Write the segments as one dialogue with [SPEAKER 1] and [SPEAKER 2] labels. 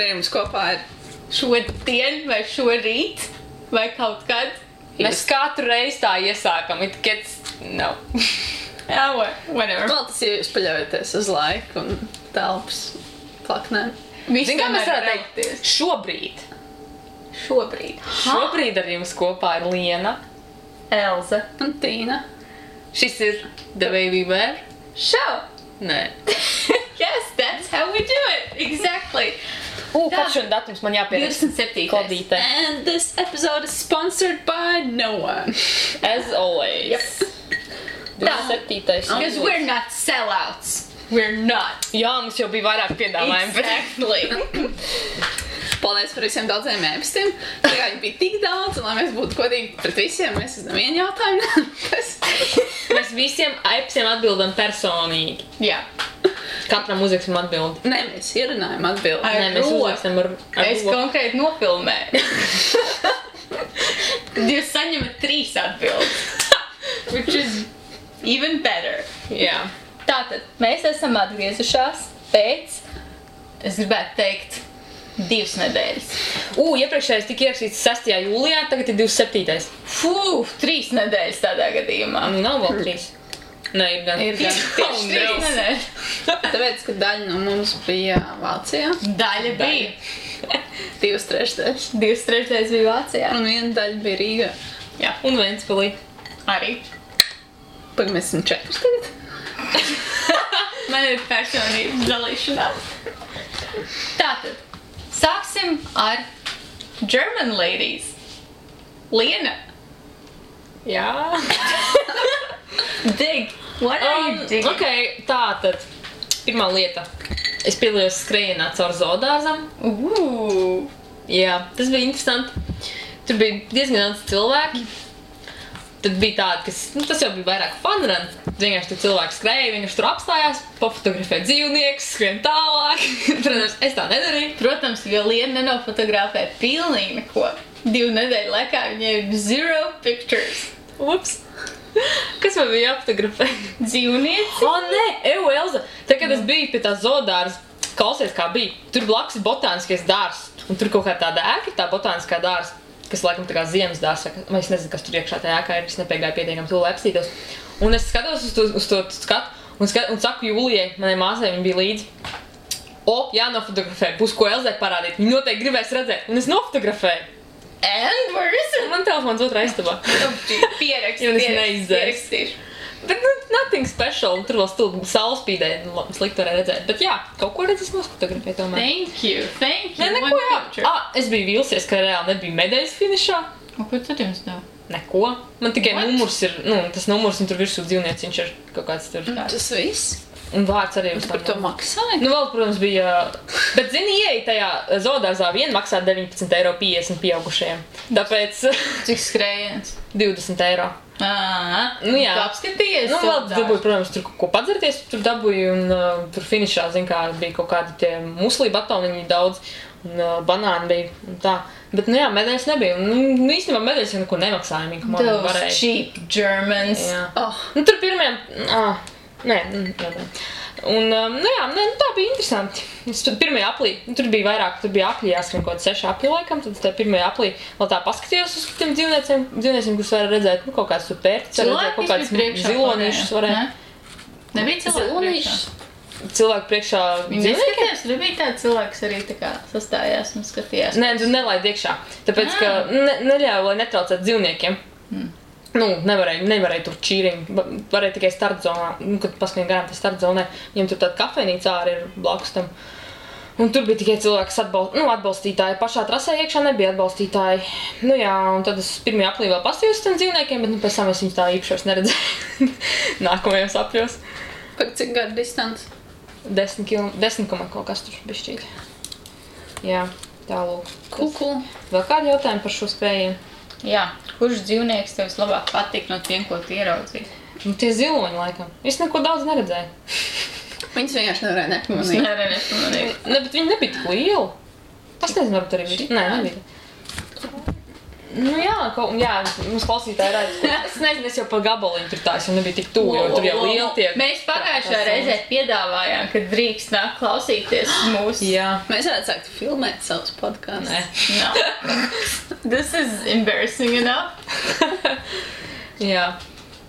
[SPEAKER 1] ar jums kopā ir
[SPEAKER 2] šodien vai šorīt vai kaut kad.
[SPEAKER 3] Mēs katru reizi tā iesākam, it gets, no.
[SPEAKER 2] Jā, whatever.
[SPEAKER 1] Vēl tas, ja jūs paļaujaties uz laiku un telpas plaknēm.
[SPEAKER 2] Visi
[SPEAKER 3] Zin, kā mēs
[SPEAKER 2] tomēr
[SPEAKER 3] varētu teikt?
[SPEAKER 2] Šobrīd.
[SPEAKER 3] Šobrīd ar jums kopā ir Liena.
[SPEAKER 2] Elza.
[SPEAKER 1] Un Tīna.
[SPEAKER 3] Šis ir The Baby Bear.
[SPEAKER 2] Show.
[SPEAKER 3] Nē.
[SPEAKER 2] Yes, that's how we do it. Exactly.
[SPEAKER 3] Kāds šodien datums man jāpierakst?
[SPEAKER 2] 27.
[SPEAKER 3] Klodīte.
[SPEAKER 1] And this episode is sponsored by no one.
[SPEAKER 3] As always.
[SPEAKER 2] Yep.
[SPEAKER 3] 27.
[SPEAKER 2] Because we're not sellouts. We're not.
[SPEAKER 3] Jā, mums jau bija vairāk piedāvājumi.
[SPEAKER 2] Exactly.
[SPEAKER 1] Paldies par visiem daudziem ēpastiem. Jā, viņi bija tik daudz, un lai mēs būtu godīgi pret visiem, mēs uzdam vienu jautājumu.
[SPEAKER 3] Mēs visiem ēpastiem atbildam personīgi.
[SPEAKER 2] Jā.
[SPEAKER 3] Katram uzraksim atbildi.
[SPEAKER 1] Nē, mēs ierunājam atbildi.
[SPEAKER 2] Ar
[SPEAKER 3] Nē, mēs
[SPEAKER 2] roku.
[SPEAKER 3] uzrakstam ar
[SPEAKER 2] Es
[SPEAKER 3] roku.
[SPEAKER 2] konkrēti nofilmēju. Tad jūs saņemat 3 atbildes. Which is even better.
[SPEAKER 3] Jā.
[SPEAKER 2] Tātad, mēs esam atgriezušās pēc, es gribētu teikt, 2 nedēļas.
[SPEAKER 3] Iepriekšējais tika ierakstīts 6. jūlijā, tagad ir 27.
[SPEAKER 2] Fū, 3 nedēļas tādā gadījumā.
[SPEAKER 3] Nav vēl 3. Nē, ir gan.
[SPEAKER 1] Ir gan.
[SPEAKER 2] Tieši 3 nedēļas.
[SPEAKER 1] Tāpēc, ka daļa no mums bija Vācijā.
[SPEAKER 2] Daļa bija.
[SPEAKER 1] 2/3.
[SPEAKER 2] 2/3 bija Vācijā.
[SPEAKER 1] Un viena daļa bija Rīgā.
[SPEAKER 2] Jā,
[SPEAKER 3] Un Ventspilī.
[SPEAKER 2] arī.
[SPEAKER 1] Pagaid, mēs esam 4 tagad.
[SPEAKER 2] Man ir personības dalīšanās. Tātad, sāksim ar German ladies. Liena.
[SPEAKER 3] Jā.
[SPEAKER 2] Dig. What are you digging?
[SPEAKER 3] Ok, tātad. Pirmā lieta. Es piedalījos skrējienā caur zoodārzam. Jā, tas bija interesanti. Tur bija diezgan daudz cilvēki. Tad bija tādi, kas, tas jau bija vairāk fun run. Vienkārši tur cilvēki skrēja, vienkārši tur apstājās, pofotografē dzīvniekus, skrien tālāk. Protams, es tā nedarīju.
[SPEAKER 2] Protams, jo Liena nenofotografē pilnīgi neko. 2 nedēļu laikā viņai ir 0 pictures.
[SPEAKER 3] Ups. Kas man bija jāfotografē?
[SPEAKER 2] Dzīvnieci.
[SPEAKER 3] Nē, Elza. Tad, kad es biju pie tā zoodārza, klausies, kā bija. Tur blakus ir botāniskais dārs. Un tur kaut kā tāda ēka, tā botāniskā dārza, kas laikam tā kā ziemas dārs. Vai es nezinu, kas tur iekšā tajā ēkā ir. Es nepiegāju pietiekam to, lai apstītos. Un es skatos uz to skatu un saku Jūlijai, manai māsai, viņa bija līdzi. Jānofotografē, būs ko Elzai parādīt. Viņa noteikti gribēs redzēt. Un es nofotografēju.
[SPEAKER 2] And where is it?
[SPEAKER 3] Man telefons otrā istabā. Jo es neizdzēsu.
[SPEAKER 2] Pierakstīšu.
[SPEAKER 3] Bet, nothing special. Tur vēl saules spīdēja, slikti varēja redzēt. Bet jā, kaut ko redzes nofotografēju tomēr.
[SPEAKER 2] Thank you.
[SPEAKER 3] Nē, neko
[SPEAKER 2] One
[SPEAKER 3] jā.
[SPEAKER 2] picture.
[SPEAKER 3] Es biju vīlusies, ka reāli nebija medaļas finišā.
[SPEAKER 2] Un ko tad jums deva?
[SPEAKER 3] Neko. Man tikai
[SPEAKER 2] What?
[SPEAKER 3] numurs ir, tas numurs un tur virsū dzīvnieciņš ir kaut kāds tur.
[SPEAKER 1] Tas viss.
[SPEAKER 3] Un vārds arī uz
[SPEAKER 1] Par to maksāja?
[SPEAKER 3] Vēl, protams, bija... Bet, zini, ieeja tajā zoodārzā vien maksā 19,50 € pieaugušajiem. Tāpēc
[SPEAKER 2] Cik skrējiens?
[SPEAKER 3] 20 €.
[SPEAKER 2] Nu
[SPEAKER 3] jā.
[SPEAKER 2] Tu apskatījies?
[SPEAKER 3] Vēl dabūju, protams, tur ko padzerties, tur dabūju un tur finišā, zin kā, bija kaut kādi tie muslī batoniņi daudz un banāni bija un tā. Bet, jā, medaļas nebija. Un, īstenībā medaļas jau neko nemaksāja, ka man
[SPEAKER 2] Those
[SPEAKER 3] varēja.
[SPEAKER 2] cheap Germans.
[SPEAKER 3] Jā.
[SPEAKER 1] Oh,
[SPEAKER 3] Tur pirmajam... Nē. Un, tā bija interesanti. Pirmajā aplī, tur bija vairāk, tur bija apļi jāskrien kaut 6 apļi laikam, tad tajā pirmajā aplī vēl tā paskatījos uz tiem dzīvnieciem, kurus varēja redzēt, kaut kāds tur pērtis, redzēt, kaut kāds zilonīšus varēja.
[SPEAKER 2] Nebija cilvēku priekšā?
[SPEAKER 3] Cilvēku priekšā
[SPEAKER 2] Viņi
[SPEAKER 3] dzīvniekiem?
[SPEAKER 2] neskatījās, tur bija tāds cilvēks arī tā kā sastājās un skatījās.
[SPEAKER 3] Nē, tu nelaid iekšā, tāpēc, ka neļauj, lai netraucētu dzīvniekiem. Nevarēja tur čīriņu, varēja tikai startzonā, kad paskrien garām tā startzonē, viņam tur tāda kafejnīca arī ir blakus tam. Un tur bija tikai cilvēki atbalstītāji, pašā trasē iekšā nebija atbalstītāji. Un tad es pirmajā aplī vēl pastījos tiem dzīvniekiem, bet pēc tam es viņus tā īpašos neredzēju nākamajos apļos.
[SPEAKER 1] par cik gadu distance?
[SPEAKER 3] 10 kaut kas tur bišķīt. Jā, tālūk.
[SPEAKER 1] Cool.
[SPEAKER 3] Vēl kādi jautājumi par šo skrējienu?
[SPEAKER 2] Jā, kurš dzīvnieks tev vislabāk patīk no tiem, ko tu ieraudzīji?
[SPEAKER 3] Tie ziloņi laikam. Es neko daudz neredzēju.
[SPEAKER 1] Viņas vienkārši nevarēja nepamanīt.
[SPEAKER 2] Nepamanīju.
[SPEAKER 3] Ne, bet viņi nebija tik lieli. Es nezinu, varbūt arī bija. Nē, nebija. Nu jā, mums klausītāji redz, es nezinu, es jau pa gabaliņu tur tā, es jau nebija tik tuvu, jo tur jau lieli tiek.
[SPEAKER 2] Mēs pagājušā reizē piedāvājām, ka drīkst nāk klausīties mūsu.
[SPEAKER 3] Jā.
[SPEAKER 1] Mēs varētu sākt filmēt savus podkāstus.
[SPEAKER 3] Nē.
[SPEAKER 2] No. This is embarrassing enough.
[SPEAKER 3] Jā.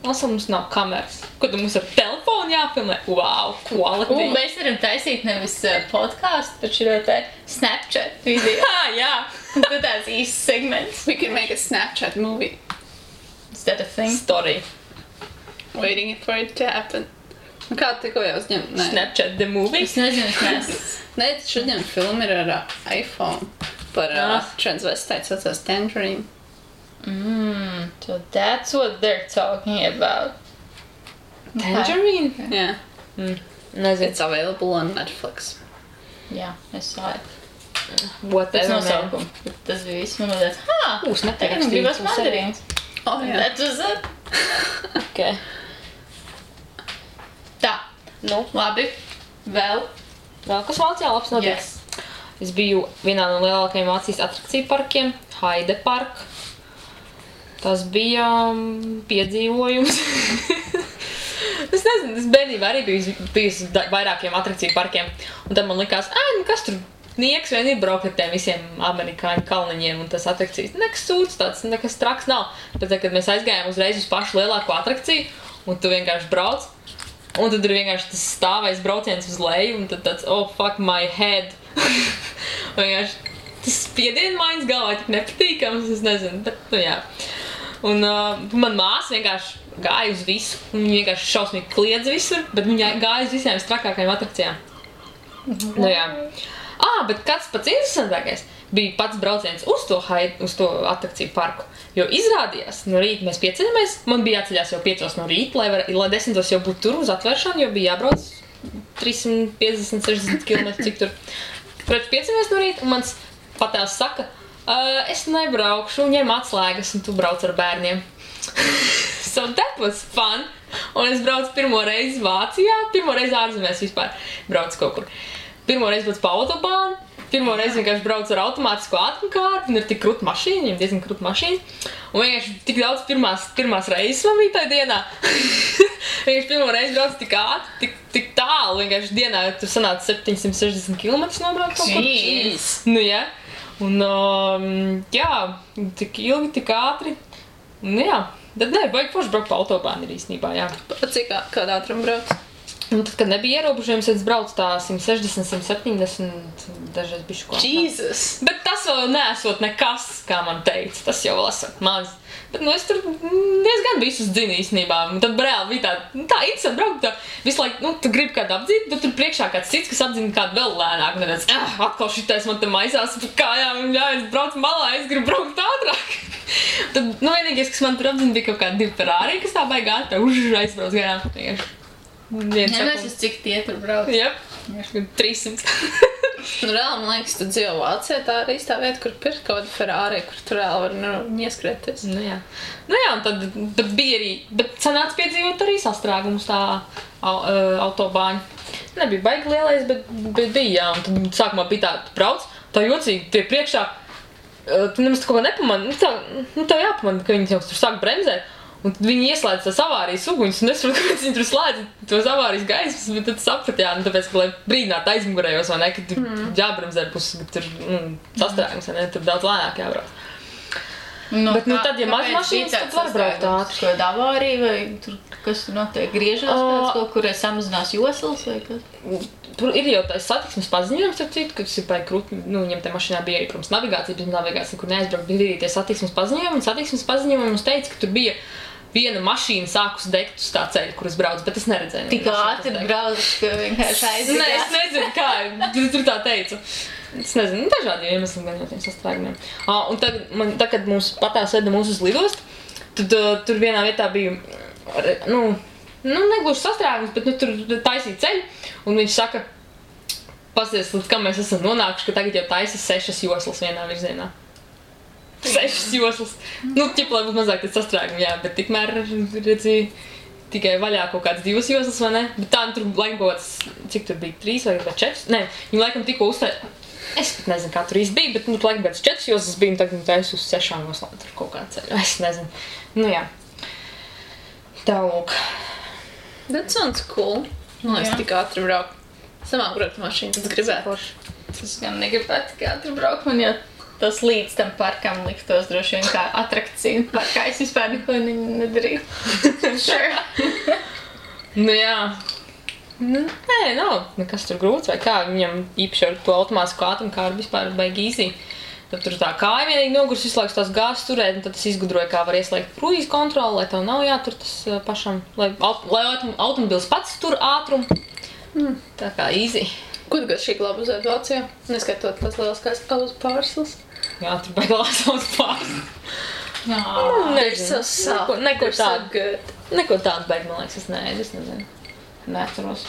[SPEAKER 3] Mums nav kameras. Ko tu mums ar telefonu jāfilmē? Wow, quality.
[SPEAKER 2] Mēs varam taisīt nevis podcastu, bet šo te Snapchat video.
[SPEAKER 3] Jā.
[SPEAKER 2] Un tad tāds īsts segments.
[SPEAKER 1] We could make a Snapchat movie.
[SPEAKER 2] Is that a thing?
[SPEAKER 3] Story.
[SPEAKER 1] Waiting for it to happen. Nu kā tikko jau uzņem? Nē.
[SPEAKER 3] Snapchat the movie.
[SPEAKER 2] Es nezinu, es neesmu.
[SPEAKER 1] Nē, šodien filma ir ar iPhone par transvestītu saucās Tangerine.
[SPEAKER 2] So that's what they're talking about.
[SPEAKER 3] Tangerine?
[SPEAKER 1] Yeah.
[SPEAKER 3] Nezinu.
[SPEAKER 1] It's available on Netflix.
[SPEAKER 2] Jā, es savu.
[SPEAKER 3] Whatever,
[SPEAKER 2] Tas
[SPEAKER 3] man.
[SPEAKER 2] nosaukums. Tas bija viss, man liekas,
[SPEAKER 3] Būs
[SPEAKER 2] tagad
[SPEAKER 3] netakstīts.
[SPEAKER 2] gribas mandarīns.
[SPEAKER 1] Oh, jā.
[SPEAKER 2] That was it.
[SPEAKER 3] Okay.
[SPEAKER 2] Tā,
[SPEAKER 3] Nu,
[SPEAKER 2] labi. Vēl.
[SPEAKER 3] vēl kas Vācijā labs notiks?
[SPEAKER 2] Yes.
[SPEAKER 3] Es biju vienā no lielākajiem Vācijas atrakciju parkiem, Heide Park. Tas bija piedzīvojums. Es nezinu, es bērnībā arī biju vairākiem atrakciju parkiem. Un tad man likās, kas tur nieks vien ir braukt ar tiem visiem amerikāņu kalniņiem un tas atrakcijas. Nekas sūds tāds, nekas traks nav. Bet kad mēs aizgājām uzreiz uz pašu lielāko atrakciju un tu vienkārši brauc. Un tad ir vienkārši tas stāvais brauciens uz leju un tad tāds, oh fuck my head. Vienkārši tas spiedienmaiņas galvā tik nepatīkams, es nezinu, bet nu jā. Un man māsa vienkārši gāja uz visu, un viņa vienkārši šausmīgi kliedz visur, bet viņa gāja uz visiem strakākajiem atrakcijām. Nu jā. Bet kāds pats interesantākais bija pats brauciens uz to atrakciju parku, jo izrādījās, no rīta mēs pieceļamies, man bija jāceļās jau 5 no rīta, lai 10 jau būtu tur uz atvēršanu, jo bija jābrauc 350-60 km, cik tur. Protams, pieceļamies no rīta, un mans patēls saka, es nebraukšu, ņem atslēgas, un tu brauc ar bērniem. So that was fun. Un es braucu pirmo reizi Vācijā, pirmo reizi ārzemēs vispār braucu kaut kur. Pirmo reizi braucu pa autobānu, pirmo reizi vienkārši braucu ar automātisko ātrumkārti, un ir tik krūta mašīna, viņam diezgan krūta mašīna. Un vienkārši tik daudz pirmās reizes man bija tajā dienā. Vienkārši pirmo reizi braucu tik ātri, tik tālu, vienkārši dienā tur sanāca 760 km nobraukt kaut kur.
[SPEAKER 1] Jeez.
[SPEAKER 3] Nu jā. Un jā, tik ilgi, tik ātri. Un jā, tad vajag forši braukt pa autobānu ir īstenībā, jā.
[SPEAKER 1] Cik kādā ātrumu brauc?
[SPEAKER 3] Un tad, kad nebija ierobežojums, es braucu tā 160, 170, dažreiz bišķi ko.
[SPEAKER 1] Jesus!
[SPEAKER 3] Bet tas vēl neesot nekas, kā man teica, tas jau vēl esot maz. Bet, es tur diezgan visus dzinu īstenībā. Un tad reāli bija tā interesanti braukt, tā visu laiku, tu gribi kādu apdzīt, bet tur priekšā kāds cits, kas apdzina kādu vēl lēnāk. Un tad atkal šitais man te maisās pa kājām, un es braucu malā, es gribu braukt ātrāk. Tad, vienīgais, kas man tur apdzina, bija kaut kādi 2 Ferrari, kas tā baigā aizbrauc garām.
[SPEAKER 2] Nevies, cik tie tur brauc.
[SPEAKER 3] Jep, 300.
[SPEAKER 1] Reāli, man liekas, tu dzīvo Vācijā, tā arī tā vieta, kur pirkt kaut kādu Ferrari, kur tu reāli var ieskrēties.
[SPEAKER 3] Nu jā, un tad bija arī, bet sanāca piedzīvot arī sastrēgumus tā autobāņa. Nebija baigi lielais, bet bija, jā, un tad sākumā bija tā, tu brauc, tā jocīgi, tie priekšā, tu nemaz kaut ko nepamani, tev jāpamani, ka viņi jau tur sāk bremzēt. Un tad viņi ieslēdz tās avārijas uguņus, un es saprotu, kāpēc viņi tur slēdz tos avārijas gaismas, bet tad sapratu, jā, tāpēc, ka, lai brīdinātu aizmugurējos, vai ne, ka tur jābremzē pusi, ka tur sastrēgums, vai ne, tur daudz lēnāk jābrauc. Bet, tad, ja maz mašīnas, tad var braukt ātri.
[SPEAKER 2] Ko avārija, vai tur, kas tur notiek, griežās pēc kaut kur, samazinās joslas, vai kas?
[SPEAKER 3] Tur ir jau tāds satiksmes paziņojums, kas ir baigi krūti, viņam te mašīnā bija arī, protams, navigācija, bet navigācija, kur neaizbraukt, bija arī tie satiksmes paziņojumi, un satiksmes paziņojumi mums teica, ka tur bija viena mašīna sākus degt uz tā ceļa, kur es braucu, bet es neredzēju.
[SPEAKER 2] Tik ātri brauc, ka vienkārši aizgājās.
[SPEAKER 3] Nē, es nezinu, kā, tur tā teicu. Es nezinu, dažādi iemesli gan jau tiem sastrēgumiem. Un tad, kad mums patās veda mūs uz lidostu, tad tur vienā vietā bija, negluži sastrēgums, bet tur taisīja ceļu, un viņš saka, pasties, līdz kam mēs esam nonākuši, ka tagad jau taisa 6 joslas vienā virzienā. 6 joslas. Ķip, lai būtu mazāk tas sastrēgumi, jā, bet tikmēr redzīja tikai vaļā kaut kāds 2 joslas, vai ne? Bet tā, tur laikam kaut kāds, cik tur bija, 3 vai 4? Nē, viņi laikam tikko uztaisīja. Es pat nezinu, kā tur īsti bija, bet, laikam pēc 4 jostas biju, un tagad es uz 6 joslām tur kaut kā ceļu. Es nezinu. Jā. Tā lūk.
[SPEAKER 1] That sounds cool. Es tik ātri braukt. Samāk braukt mašīnu, tas gribētu.
[SPEAKER 2] Tas gan negribētu tik ātri braukt, man jau tas līdz tam parkam liktos droši vien kā atrakcija parkā. Es vispār neko nedarīju. Sure.
[SPEAKER 3] Jā. Nē, nav nekas tur grūts vai kā. Viņam īpaši ar to automātisku ātrumkāru vispār baigi easy. Tad tur tā kāja vienīgi nogurs visu laiku tās gāzes turēt, un tad es izgudroju, kā var ieslēgt kruīzu kontroli, lai tev nav jātur tas pašam, lai automobils pats tur ātrumu. Tā kā easy.
[SPEAKER 1] Ko tu gadu šī glāba uzēt Vācijā? Neskaitot tās lieliskās auzu pārslas.
[SPEAKER 3] Jā, tur baigi lās auzu pārslas.
[SPEAKER 1] They're so soft.
[SPEAKER 3] Neko
[SPEAKER 1] They're so
[SPEAKER 3] tādu.
[SPEAKER 1] good.
[SPEAKER 3] Neko tādu baigi, man liekas, es nezinu.
[SPEAKER 2] Neatceros.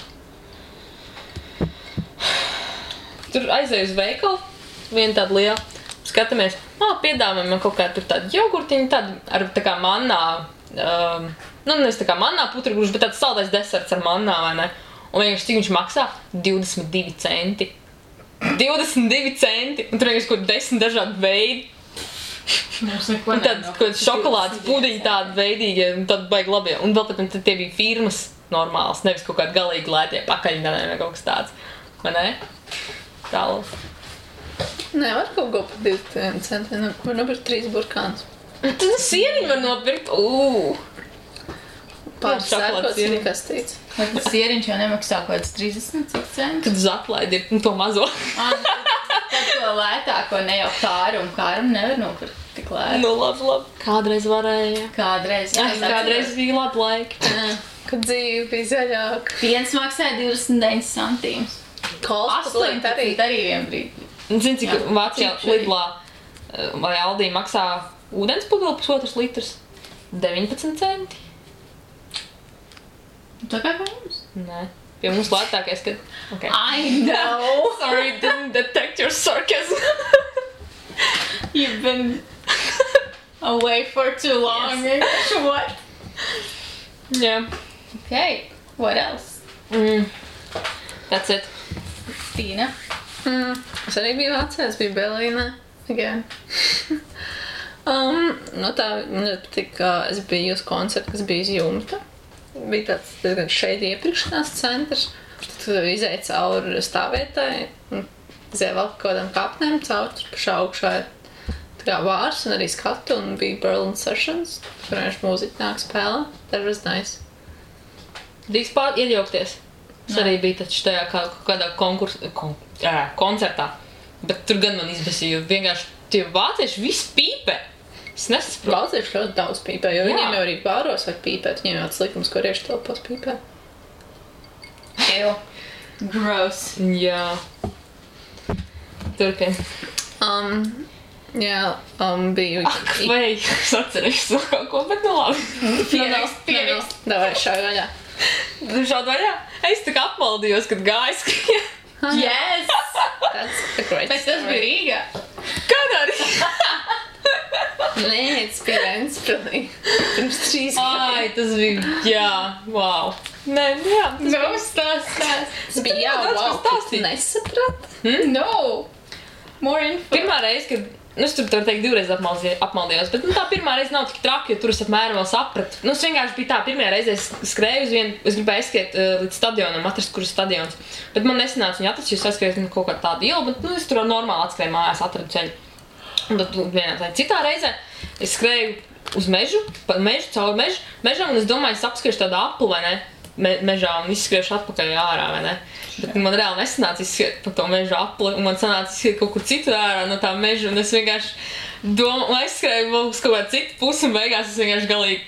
[SPEAKER 3] Tur aizēju uz veikalu, viena tāda liela. Skatāmies, piedāvājam man kaut kā tur tādu jogurtiņu, tādu ar tā kā mannā, nevis tā kā mannā putragruši, bet tāds saldais deserts ar mannā, vai ne? Un vienkārši cik viņš maksā? 22 centi. 22 centi! Un tur vienkārši kaut 10 dažādi veidi. Un tad kaut šokolādes pudiņi tādi veidīgi, un tad baigi labie. Un vēl pat tie bija firmas normāls, nevis kaut kādi galīgi lētie pakaļņanē vai kaut kas tāds. Vai ne? Tālāk.
[SPEAKER 1] Nevar kaut ko par 2 centiem. Var nopirkt 3 burkānus.
[SPEAKER 3] Tad sieniņu var nopirkt.
[SPEAKER 1] Pāris sērkots kastīts.
[SPEAKER 2] Tas sieriņš jau nemaksā kaut kāds 30 centus.
[SPEAKER 3] Kad uz atlaidi ir to mazo.
[SPEAKER 2] Tad to lētāko ne jau kārumu nevar nopirkt tik lēti.
[SPEAKER 3] Nu, labi. Kādreiz varēja.
[SPEAKER 2] Kādreiz.
[SPEAKER 3] Kādreiz bija labi laiki.
[SPEAKER 1] Kad dzīve bija zaļāka.
[SPEAKER 2] Viens maksāja 29 centīmus.
[SPEAKER 1] Kols
[SPEAKER 2] 18 arī vien brīdi.
[SPEAKER 3] Zini, cik Vācijā Lidlā vai Aldī maksā ūdens pudeli 1,5 litrs? 19 centi.
[SPEAKER 2] Tā kā pie mums?
[SPEAKER 3] Nē. Pie mums lētākais, kad... Okay.
[SPEAKER 2] I know!
[SPEAKER 3] Sorry, didn't detect your sarcasm.
[SPEAKER 2] You've been away for too long. Yes. What?
[SPEAKER 3] Yeah.
[SPEAKER 2] Okay, what else?
[SPEAKER 3] That's it.
[SPEAKER 2] Tīna?
[SPEAKER 1] Es arī biju Vācijā, es biju Berlīnē. Again. Tā, man patīk, ka es biju uz koncertu, kas bija uz jumta. Bija tāds diezgan šeit iepriekšanās centrs. Tad izēja cauri stāvvietai, izēja vēl kaut kādām kāpnēm cauri, pašā augšā ir tā kā vārs un arī skatu, un bija Berlin Sessions, kur vienkārši mūziķi nāk spēlē. That was nice.
[SPEAKER 3] Drīkst iejaukties. Es arī biju taču tajā kādā koncertā, bet tur gan man izbasīja, jo vienkārši tie vācieši visi pīpē. Es nesaprotu.
[SPEAKER 1] Vācieši ļoti daudz pīpē, jo viņiem jau arī bāros var pīpēt, viņiem jau tāds likums, ko rieši telpos pīpē.
[SPEAKER 2] Ew. Gross.
[SPEAKER 3] Jā. Turpin.
[SPEAKER 1] Biju...
[SPEAKER 3] Vai es atcerēšu vēl kaut ko, bet nu labi.
[SPEAKER 2] Pierakst.
[SPEAKER 1] Davai, šauj vaļā.
[SPEAKER 3] Šādi vaļā? Es tā kā apmaldījos, kad gāju skrien.
[SPEAKER 2] Yes!
[SPEAKER 1] That's a great
[SPEAKER 2] Bet tas bija Rīgā.
[SPEAKER 3] Kādā Rīgā?
[SPEAKER 1] Nē, tas bija Ventspilī. Pirms 3 gadiem.
[SPEAKER 3] Ai, tas bija, jā, wow. Nē, jā.
[SPEAKER 2] No, stāst.
[SPEAKER 1] Tas bija, jā, wow, tu nesaprat?
[SPEAKER 2] No! More info.
[SPEAKER 3] Pirmā reize, kad, es tur var teikt 2 reizes apmaldījos, bet tā pirmā reize nav tik traki, jo tur es apmēram vēl sapratu. Es vienkārši bija tā, pirmajā reizē es skrēju uz vienu, es gribēju aizskriet līdz stadionam, atrast, kur ir stadions. Bet man nesanāca viņu atrast, jo es aizskrēju kaut kādu tādu ielu, bet es tur normāli atskrēju mājās, atradu ceļu. Un tad vienā tā citā reizē es skrēju uz mežu, caur mežam, un es domāju, es apskriešu tādu apli, vai ne, mežā un izskriešu atpakaļ ārā, vai ne. Bet man reāli nesanāca izskriet pa to mežu apli, un man sanāca izskriet kaut kur citur ārā no tā meža, un es vienkārši aizskrēju vēl uz kaut kādu citu pusi, un beigās es vienkārši galīgi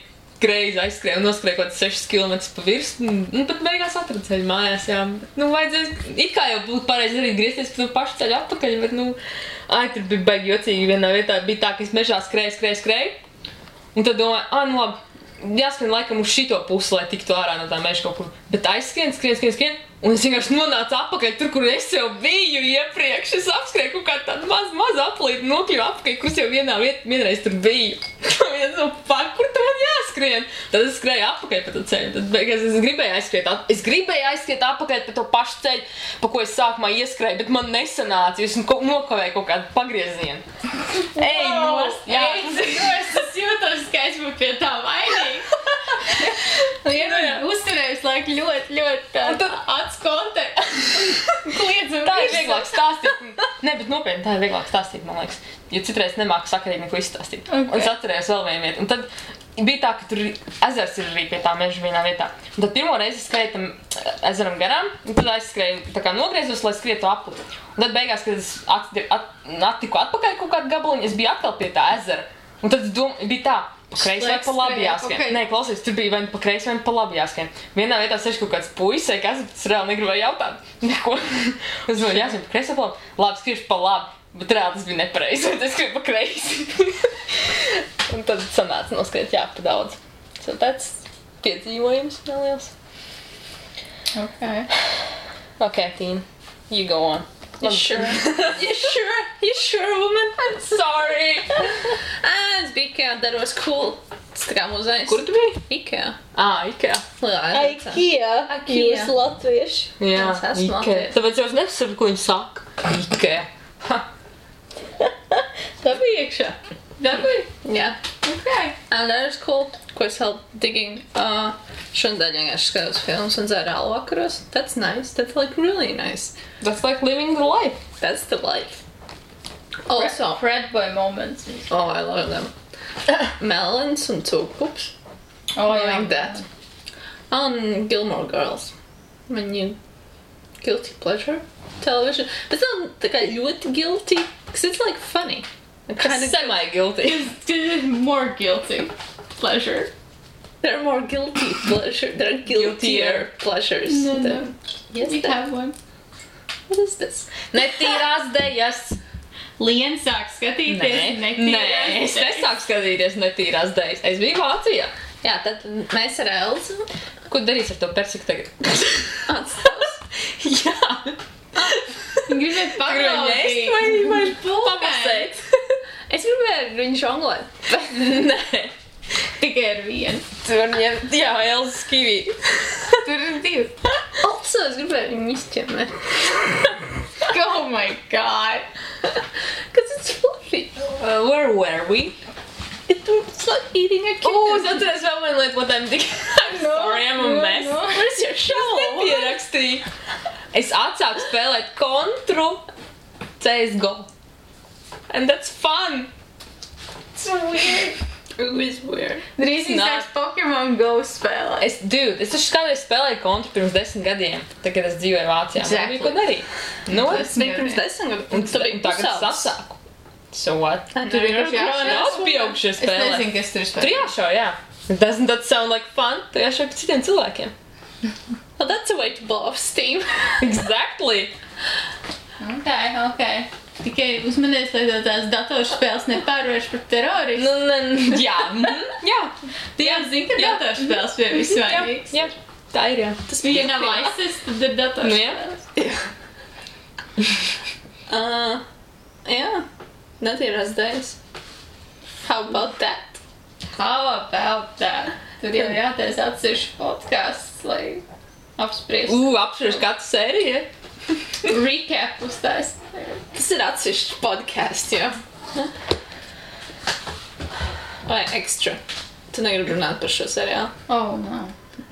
[SPEAKER 3] greizi aizskrēju un noskrēju kaut 6 km pa virsmu, un pat beigās atradu ceļu mājās, jā. Vajadzēja, it kā jau būtu pareizi arī griezties pa to pašu ceļu atpakaļ, bet, tur bija baigi jocīgi vienā vietā, bija tā, ka es mežā skrēju, un tad domāju, labi, jāskrien laikam uz šito pusi, lai tiktu ārā no tā meža kaut kur, bet aizskrien, un es vienkārši nonācu atpakaļ tur, kur es jau biju iepriekš, es apskrēju kaut kādu tādu mazu aplīti, nokļuvu atpakaļ, kur es jau vienreiz tur biju. Kur tu man jāskrien? skrienu, tad es skrēju apakaļ pa to ceļu. Tad beigās es gribēju aizskriet apakaļ pa to pašu ceļu, pa ko es sākumā ieskrēju, bet man nesanāca, jo es nokavēju kaut kādu pagriezienu. Ej, nost! Jā,
[SPEAKER 2] Es jūtos, ka es būtu pie tā vainīga. Uzturējus laiku ļoti atskontē. Kliedzam.
[SPEAKER 3] Tā ir vieglāk stāstīt. Ne, bet nopietni, tā ir vieglāk stāstīt, man liekas. Jo citreiz nemāku sakarīgi neko izstāstīt.
[SPEAKER 2] Okay.
[SPEAKER 3] Un es atcerējos vēl vienu vietu. Un tad bija tā, ka tur ezers ir arī pie tā meža vienā vietā. Un tad pirmo reizi es skrēju tam ezeram garām, un tad aizskrēju, tā kā nogriezos, lai skrietu apli. Un tad beigās, kad es attiku atpakaļ kaut kādu gabaliņu, es biju atkal pie tā ezera. Un tad bija tā, pa kreisi vai pa labi jāskrien. Okay. Nē, klausies, tur bija vai pa kreisi vai pa labi jāskrien. Vienā vietā sēž kaut kāds puisis, kas es reāli negribēju jautāt. Neko. Es domāju, jāskrien pa kreisi vai pa labi. Labi, skriešu pa labi. Bet reāli tas bija nepareizi, un es skrieju pa kreisi. Un tad sanāca noskriet jā pa daudz. So tāds piedzīvojums neliels.
[SPEAKER 2] Okay.
[SPEAKER 3] Okay, Tīna, you go on.
[SPEAKER 1] You sure? You sure, woman?
[SPEAKER 3] I'm sorry.
[SPEAKER 1] Es biju Ikea, that was cool. Tas tā kā muzejs.
[SPEAKER 3] Kur tu biji?
[SPEAKER 1] Ikea.
[SPEAKER 3] Ikea.
[SPEAKER 1] Lielā
[SPEAKER 4] Ikea. Jūs latvieši.
[SPEAKER 3] Jā,
[SPEAKER 1] Es esmu
[SPEAKER 3] Ikea.
[SPEAKER 1] latvieši.
[SPEAKER 3] Tāpēc jau es nesaprotu, ko viņi saka. Ikea.
[SPEAKER 2] Tā bija iekšā.
[SPEAKER 1] Yeah.
[SPEAKER 2] Okay.
[SPEAKER 1] And that was cool. Ko es vēl digging. Šodien vienkārši skatos filmas un dzēru alu vakaros. That's nice. That's like really nice.
[SPEAKER 3] That's like living the life.
[SPEAKER 1] That's the life. Also,
[SPEAKER 2] Fred boy moments.
[SPEAKER 1] oh, I love them. Melons and cūkups.
[SPEAKER 2] Oh,
[SPEAKER 1] I like that. On Gilmore Girls. When you guilty pleasure television. But it's not tā kā ļoti guilty. Because it's like funny.
[SPEAKER 3] Kind of semi-guilty.
[SPEAKER 2] It's more guilty pleasure.
[SPEAKER 1] There are more guilty pleasure. There are guiltier pleasures.
[SPEAKER 2] No.
[SPEAKER 1] Yes,
[SPEAKER 2] We have one.
[SPEAKER 1] What is this?
[SPEAKER 3] Netīrās dejas.
[SPEAKER 2] Lien sāk skatīties.
[SPEAKER 3] Nē, es nesāku skatīties netīrās dejas. Es biju Vācijā.
[SPEAKER 1] Jā, tad mēs ar Elzu
[SPEAKER 3] Ko darīs ar to persiku tagad?
[SPEAKER 1] atstāvs.
[SPEAKER 3] Jā.
[SPEAKER 2] Gribētu paklausīt.
[SPEAKER 3] Vai pamasēt?
[SPEAKER 1] Es gribēju viņu žonglēt.
[SPEAKER 3] Nē.
[SPEAKER 2] Tikai ar vienu.
[SPEAKER 3] Tu var ņemt, jā, Elzas kivī.
[SPEAKER 2] Tur ir divi.
[SPEAKER 1] Also, es gribēju viņu izķemēt.
[SPEAKER 2] Oh my god.
[SPEAKER 1] Because it's fluffy.
[SPEAKER 3] Where were we?
[SPEAKER 1] It's like eating a kitten.
[SPEAKER 3] Es atceros vēl vienu lietu, what I'm thinking. I'm sorry, I'm a mess.
[SPEAKER 2] no.
[SPEAKER 1] Where's your show?
[SPEAKER 3] Nepierakstīju. Es atsāku spēlēt kontru CSGO. And that's fun.
[SPEAKER 2] It's weird.
[SPEAKER 1] It is weird.
[SPEAKER 2] Drīz
[SPEAKER 3] Nā.
[SPEAKER 2] sāks Pokemon Go spēlēt.
[SPEAKER 3] Es taču kādreiz spēlēju kontru pirms 10 gadiem, tagad es dzīvoju Vācijā. Man
[SPEAKER 2] Exactly.
[SPEAKER 3] bija ko darīt. Nu,
[SPEAKER 1] Tas bija pirms 10 gadiem.
[SPEAKER 3] un tagad es atsāku. So what?
[SPEAKER 2] Tur vienkārši jāšauj.
[SPEAKER 3] Daudz pieaugušie
[SPEAKER 2] Es
[SPEAKER 3] spēlē.
[SPEAKER 2] nezinu, kas tur
[SPEAKER 3] Tur
[SPEAKER 2] spēlē.
[SPEAKER 3] jāšauj, jā. Doesn't that sound like fun? Tur jāšauj pa citiem cilvēkiem.
[SPEAKER 1] Well, that's a way to blow off steam.
[SPEAKER 3] Exactly.
[SPEAKER 2] Okay. Tikai uzmanies, lai tev tās datorspēles nepārvērš par terorismu.
[SPEAKER 3] Nu, jā. Jā.
[SPEAKER 2] Tu jau zini, ka
[SPEAKER 3] Jā.
[SPEAKER 2] datorspēles bija visvainīgs.
[SPEAKER 3] Jā. Tā ir, jā.
[SPEAKER 2] Tas bija nav ISIS, tad ir datorspēles.
[SPEAKER 1] Yeah. Netīrās dēļas. How about that?
[SPEAKER 2] How about that? Tur jau jātais atsevišķi podcasts, lai apspriestu.
[SPEAKER 3] Apspriež katru sēriju.
[SPEAKER 2] Recap uztais.
[SPEAKER 1] Tas ir atsevišķs podcasts, jā. Vai extra? Tu negribi runāt par šo seriālu?
[SPEAKER 2] Oh, no.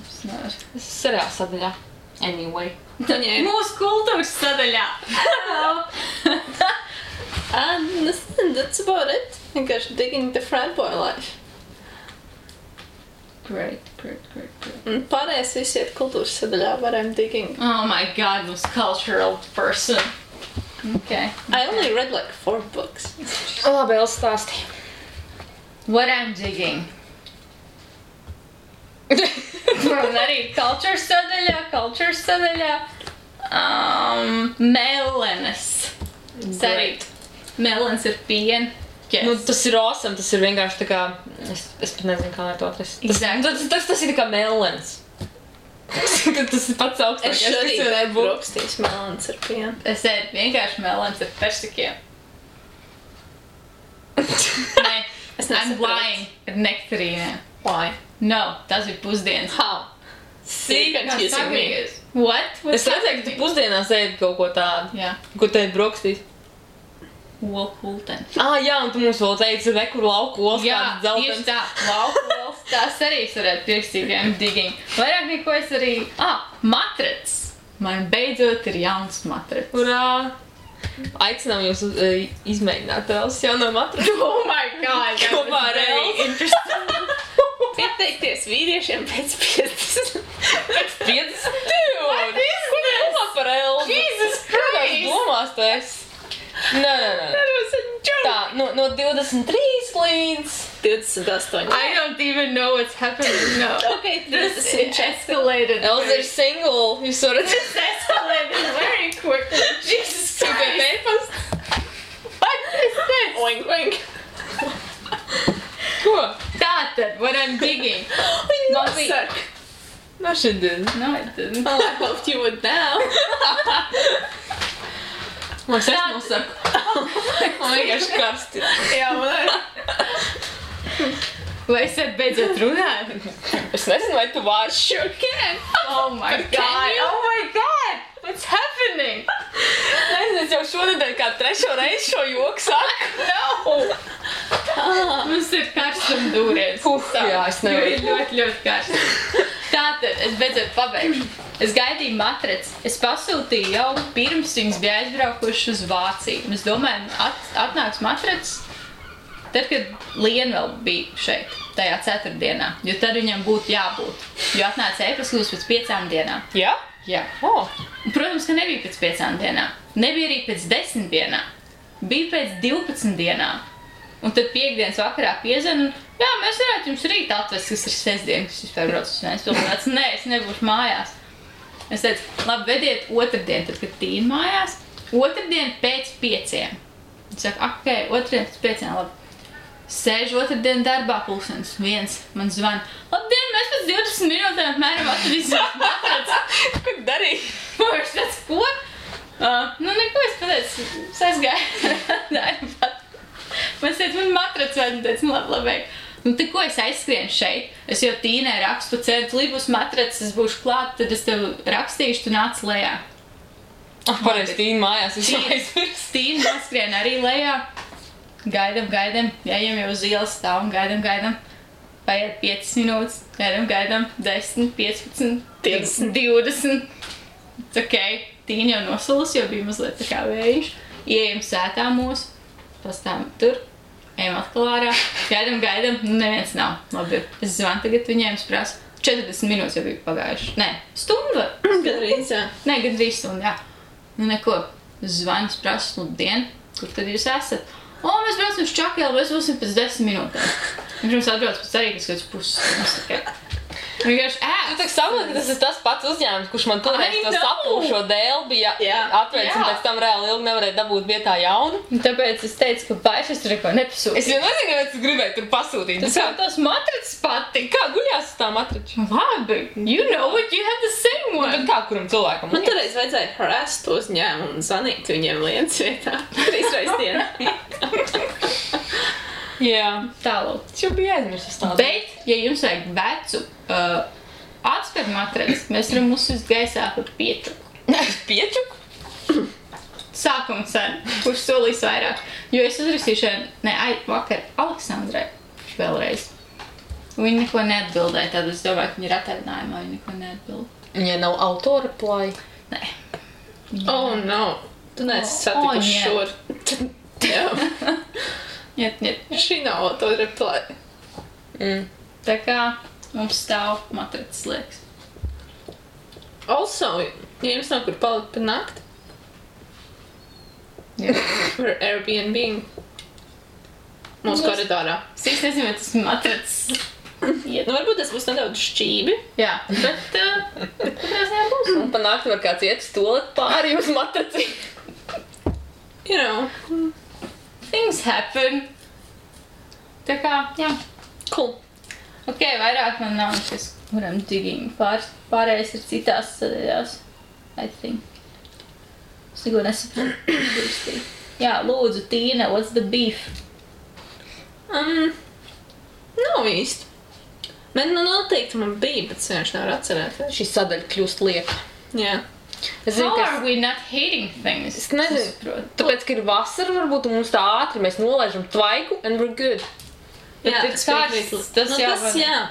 [SPEAKER 2] Es nevaru.
[SPEAKER 3] Tas ir seriāls sadaļā. Anyway.
[SPEAKER 1] Viņai ir...
[SPEAKER 2] Mūsu kultūras sadaļā.
[SPEAKER 1] That's about it. Vienkārši digging the frat boy life.
[SPEAKER 2] Great.
[SPEAKER 1] Un pārējais visi ir kultūras sadaļā, but I'm digging.
[SPEAKER 2] Oh my god, this cultural person. Okay.
[SPEAKER 1] I only read like 4 books.
[SPEAKER 3] Labi, Elsa stāstīja.
[SPEAKER 2] What I'm digging. Un arī culture sadaļā. Melenes.
[SPEAKER 1] Great.
[SPEAKER 2] Melens ir piena. Yes.
[SPEAKER 3] Nu, tas ir awesome, tas ir vienkārši tā kā... Es pat nezinu, kā lai to atrast.
[SPEAKER 2] Exactly.
[SPEAKER 3] Tas ir tā kā melens. Tas ir pats augstākais,
[SPEAKER 1] Es šodien
[SPEAKER 3] kas varētu būt.
[SPEAKER 1] brokstīs melons ar pienu.
[SPEAKER 2] Es ēdu vienkārši melens ar persikiem. Nē,
[SPEAKER 1] Es
[SPEAKER 2] I'm
[SPEAKER 1] nesaprotu.
[SPEAKER 2] lying. Ar nektarīnēm.
[SPEAKER 1] Why?
[SPEAKER 2] No, tas ir pusdienas.
[SPEAKER 1] How?
[SPEAKER 2] See,
[SPEAKER 1] You're confusing me.
[SPEAKER 2] What?
[SPEAKER 3] Es redzēju, ka tu pusdienās ēd kaut ko tādu.
[SPEAKER 2] Jā.
[SPEAKER 3] Ko te ēd brokastīs?
[SPEAKER 2] Wolten.
[SPEAKER 3] Jā, un tu mums vēl teici, kur lauku olas
[SPEAKER 2] Jā,
[SPEAKER 3] kāds dzeltens.
[SPEAKER 2] tieši tā. Laukuls. Tās arī es varētu pierakstīt I'm digging. Vairāk neko es arī... Matrets. Man beidzot ir jauns matrets.
[SPEAKER 3] Urā! Aicinām jūs izmēģināt Elsas jauno matratu.
[SPEAKER 2] Oh my god!
[SPEAKER 3] Kopā ar Elsu.
[SPEAKER 2] Interesting.
[SPEAKER 1] Pieteikties vīriešiem pēc 50.
[SPEAKER 3] Pēc 50. Dude!
[SPEAKER 2] What is
[SPEAKER 3] Ko tu
[SPEAKER 2] this?
[SPEAKER 3] domā par Elsu?
[SPEAKER 2] Jesus
[SPEAKER 3] Kādās
[SPEAKER 2] Christ!
[SPEAKER 3] domās tu esi? Nē.
[SPEAKER 1] That was a joke.
[SPEAKER 3] Tā, no 23 līdz...
[SPEAKER 1] 28.
[SPEAKER 2] I don't even know what's happening now.
[SPEAKER 1] Okay,
[SPEAKER 2] This
[SPEAKER 1] 30.
[SPEAKER 2] escalated.
[SPEAKER 3] Elsa ir single. Jūs varat...
[SPEAKER 2] This escalated very quickly. Jesus
[SPEAKER 3] Sūtēt
[SPEAKER 2] Christ.
[SPEAKER 3] e-pastu?
[SPEAKER 2] What is this?
[SPEAKER 1] Oink, oink.
[SPEAKER 3] Ko?
[SPEAKER 2] Tātad, what I'm digging.
[SPEAKER 1] Man
[SPEAKER 2] bija-
[SPEAKER 1] saka.
[SPEAKER 3] No, she didn't.
[SPEAKER 2] No, it didn't.
[SPEAKER 1] Well, I hoped you would now.
[SPEAKER 3] Man es nosaku. Man vienkārši karsti.
[SPEAKER 1] Jā, man arī.
[SPEAKER 2] Vai es varu beidzot runāt?
[SPEAKER 3] Es nezinu, vai tu vārš.
[SPEAKER 1] Sure can.
[SPEAKER 2] Oh my god! Oh my god! What's happening?
[SPEAKER 3] Nezinu, es jau šonedēļ kā 3. reizi šo joku saku.
[SPEAKER 2] No! Mums ir karstuma dūrietis.
[SPEAKER 3] Jā, es nevaru.
[SPEAKER 2] Ir ļoti karsts. Tātad, es beidzot pabeigšu. Es gaidīju matrec. Es pasūtīju jau pirms viņas bija aizbraukuši uz Vāciju. Un es domāju, atnāks matrec, tad, kad Liena vēl bija šeit, tajā 4. dienā. Jo tad viņam būtu jābūt. Jo atnāca e-pasūs pēc 5 dienām.
[SPEAKER 3] Jā?
[SPEAKER 2] Jā.
[SPEAKER 3] Oh.
[SPEAKER 2] Un, protams, ka nebija pēc 5 dienām. Nebija arī pēc 10 dienām. Bija pēc 12 dienām. Un tad piekdienas vakarā piezvan, un jā, mēs varētu jums rīt atvest, kas ir sestdien, kas vispār brauc uz Vēnspilsētu. Nē, es nebūšu mājās. Es teicu, labi, vediet otrdien, tad, kad Tīna mājās. Otrdien pēc 5. Viņš saka, ok, otrdien pēc 5, labi. Sēžu otrdien darbā, 1:00. Man zvana, labdien, mēs pēc 20 minūtēm apmēram atvedīsim matraci.
[SPEAKER 3] Ko tu darīji?
[SPEAKER 2] Viņš tāds, ko? Nu, neko, es pateicu, es aizgāju. Man teica, man matrac vajag, un teica, nu labi. Nu, te ko es aizskrienu šeit? Es jau Tīnai rakstu, ceru, līdz būs matrac, es būšu klāt, tad es tev rakstīšu, tu nāc lejā.
[SPEAKER 3] Pareizi, Tīna mājās, es jau aizmirstu.
[SPEAKER 2] Tīna noskrien arī lejā. Gaidam, ejam jau uz ielas stāvam, gaidam. Paiet 5 minūtes, gaidam, 10, 15, 20. It's ok, Tīna jau nosalas, jo bija mazliet tā kā vējš. Ieejam sētā mūsu. Pastāvam tur, ejam atkal ārā, gaidam, neviens nav. Labi, es zvanu tagad viņiem, es prasu, 40 minūtes jau bija pagājuši. Nē, stundu.
[SPEAKER 1] Gadrīz, jā.
[SPEAKER 2] Nē, gandrīz stundu, jā. Nu, neko, es zvanu, es prasu, labdien, kur tad jūs esat? O, mēs braucam uz Čakelu, mēs būsim pēc 10 minūtēm. Viņš mums atbrauc pēc arī, kas pusstundas. Vienkārši
[SPEAKER 3] Tu tā saproti, ka tas ir tas pats uzņēmums, kurš man toreiz
[SPEAKER 2] I
[SPEAKER 3] to
[SPEAKER 2] know.
[SPEAKER 3] sapūšo dēli bija atvērts, un
[SPEAKER 2] Jā.
[SPEAKER 3] pēc tam reāli ilgi nevarēja dabūt vietā jaunu.
[SPEAKER 2] Tāpēc es teicu, ka vairs es tur neko nepasūtīju.
[SPEAKER 3] Es jau nezinu, kāpēc es gribēju tur pasūtīt.
[SPEAKER 2] Tas jau tos matracis patika.
[SPEAKER 3] Kā guļās uz tā matrača?
[SPEAKER 2] Labi, you know it, you have the same
[SPEAKER 3] Bet
[SPEAKER 2] one.
[SPEAKER 3] kā kuram cilvēkam?
[SPEAKER 1] Man toreiz vajadzēja harass to uzņēmumu un zvanīt viņiem lietas vietā. 3 reizes dienā.
[SPEAKER 3] Jā.
[SPEAKER 2] Tālāk.
[SPEAKER 3] Es jau biju aizmirsis tādu.
[SPEAKER 2] Bet, ja jums vajag vecu atspēr matracis, mēs varam uzsist gaisā par piečuku.
[SPEAKER 3] Piečuku?
[SPEAKER 2] Sākuma cena, kurš solīs vairāk. Jo es uzrakstīšu, vakar Aleksandrai vēlreiz. Viņa neko neatbildēja, tad es domāju, ka viņa ir atvaļinājumā, viņa neko neatbild.
[SPEAKER 3] Viņai nav autora play.
[SPEAKER 2] Nē.
[SPEAKER 1] Oh, no. Tu neesi satikuši šur. Jā.
[SPEAKER 2] Niet.
[SPEAKER 1] Šī nav autoreply.
[SPEAKER 2] Tā kā mums stāv matracis liekas.
[SPEAKER 1] Also, ja jums nav kur palikt par nakti,
[SPEAKER 2] Jā.
[SPEAKER 1] par Airbnb mūsu koridorā.
[SPEAKER 2] Es īsti nezinu, vai tas matracis iet.
[SPEAKER 1] Nu, varbūt tas būs nedaudz šķībi.
[SPEAKER 2] Jā, bet katrā ziņā būs.
[SPEAKER 3] Un pa nakti var kāds iet uz toaletu pāri uz matraci.
[SPEAKER 1] You know.
[SPEAKER 2] Things happen. Tā kā, jā.
[SPEAKER 1] Cool.
[SPEAKER 2] Ok, vairāk man nav nekas, kuram digging. Pārējais ir citās sadaļās, I think. Es neko nesaprotu. Jā, lūdzu, Tīna, what's the beef?
[SPEAKER 1] Nav īsti. Man noteikti man bija, bet es vienkārši nevaru atcerēties.
[SPEAKER 3] Šī sadaļa kļūst lieka.
[SPEAKER 1] Jā.
[SPEAKER 3] Es zinu,
[SPEAKER 2] How
[SPEAKER 3] ka
[SPEAKER 2] are we not hating things?
[SPEAKER 3] es nezinu, tāpēc, ka ir vasara, varbūt un mums tā ātri, mēs nolaižam tvaiku and we're good.
[SPEAKER 1] Jā,
[SPEAKER 2] it's karsts, tas jau var-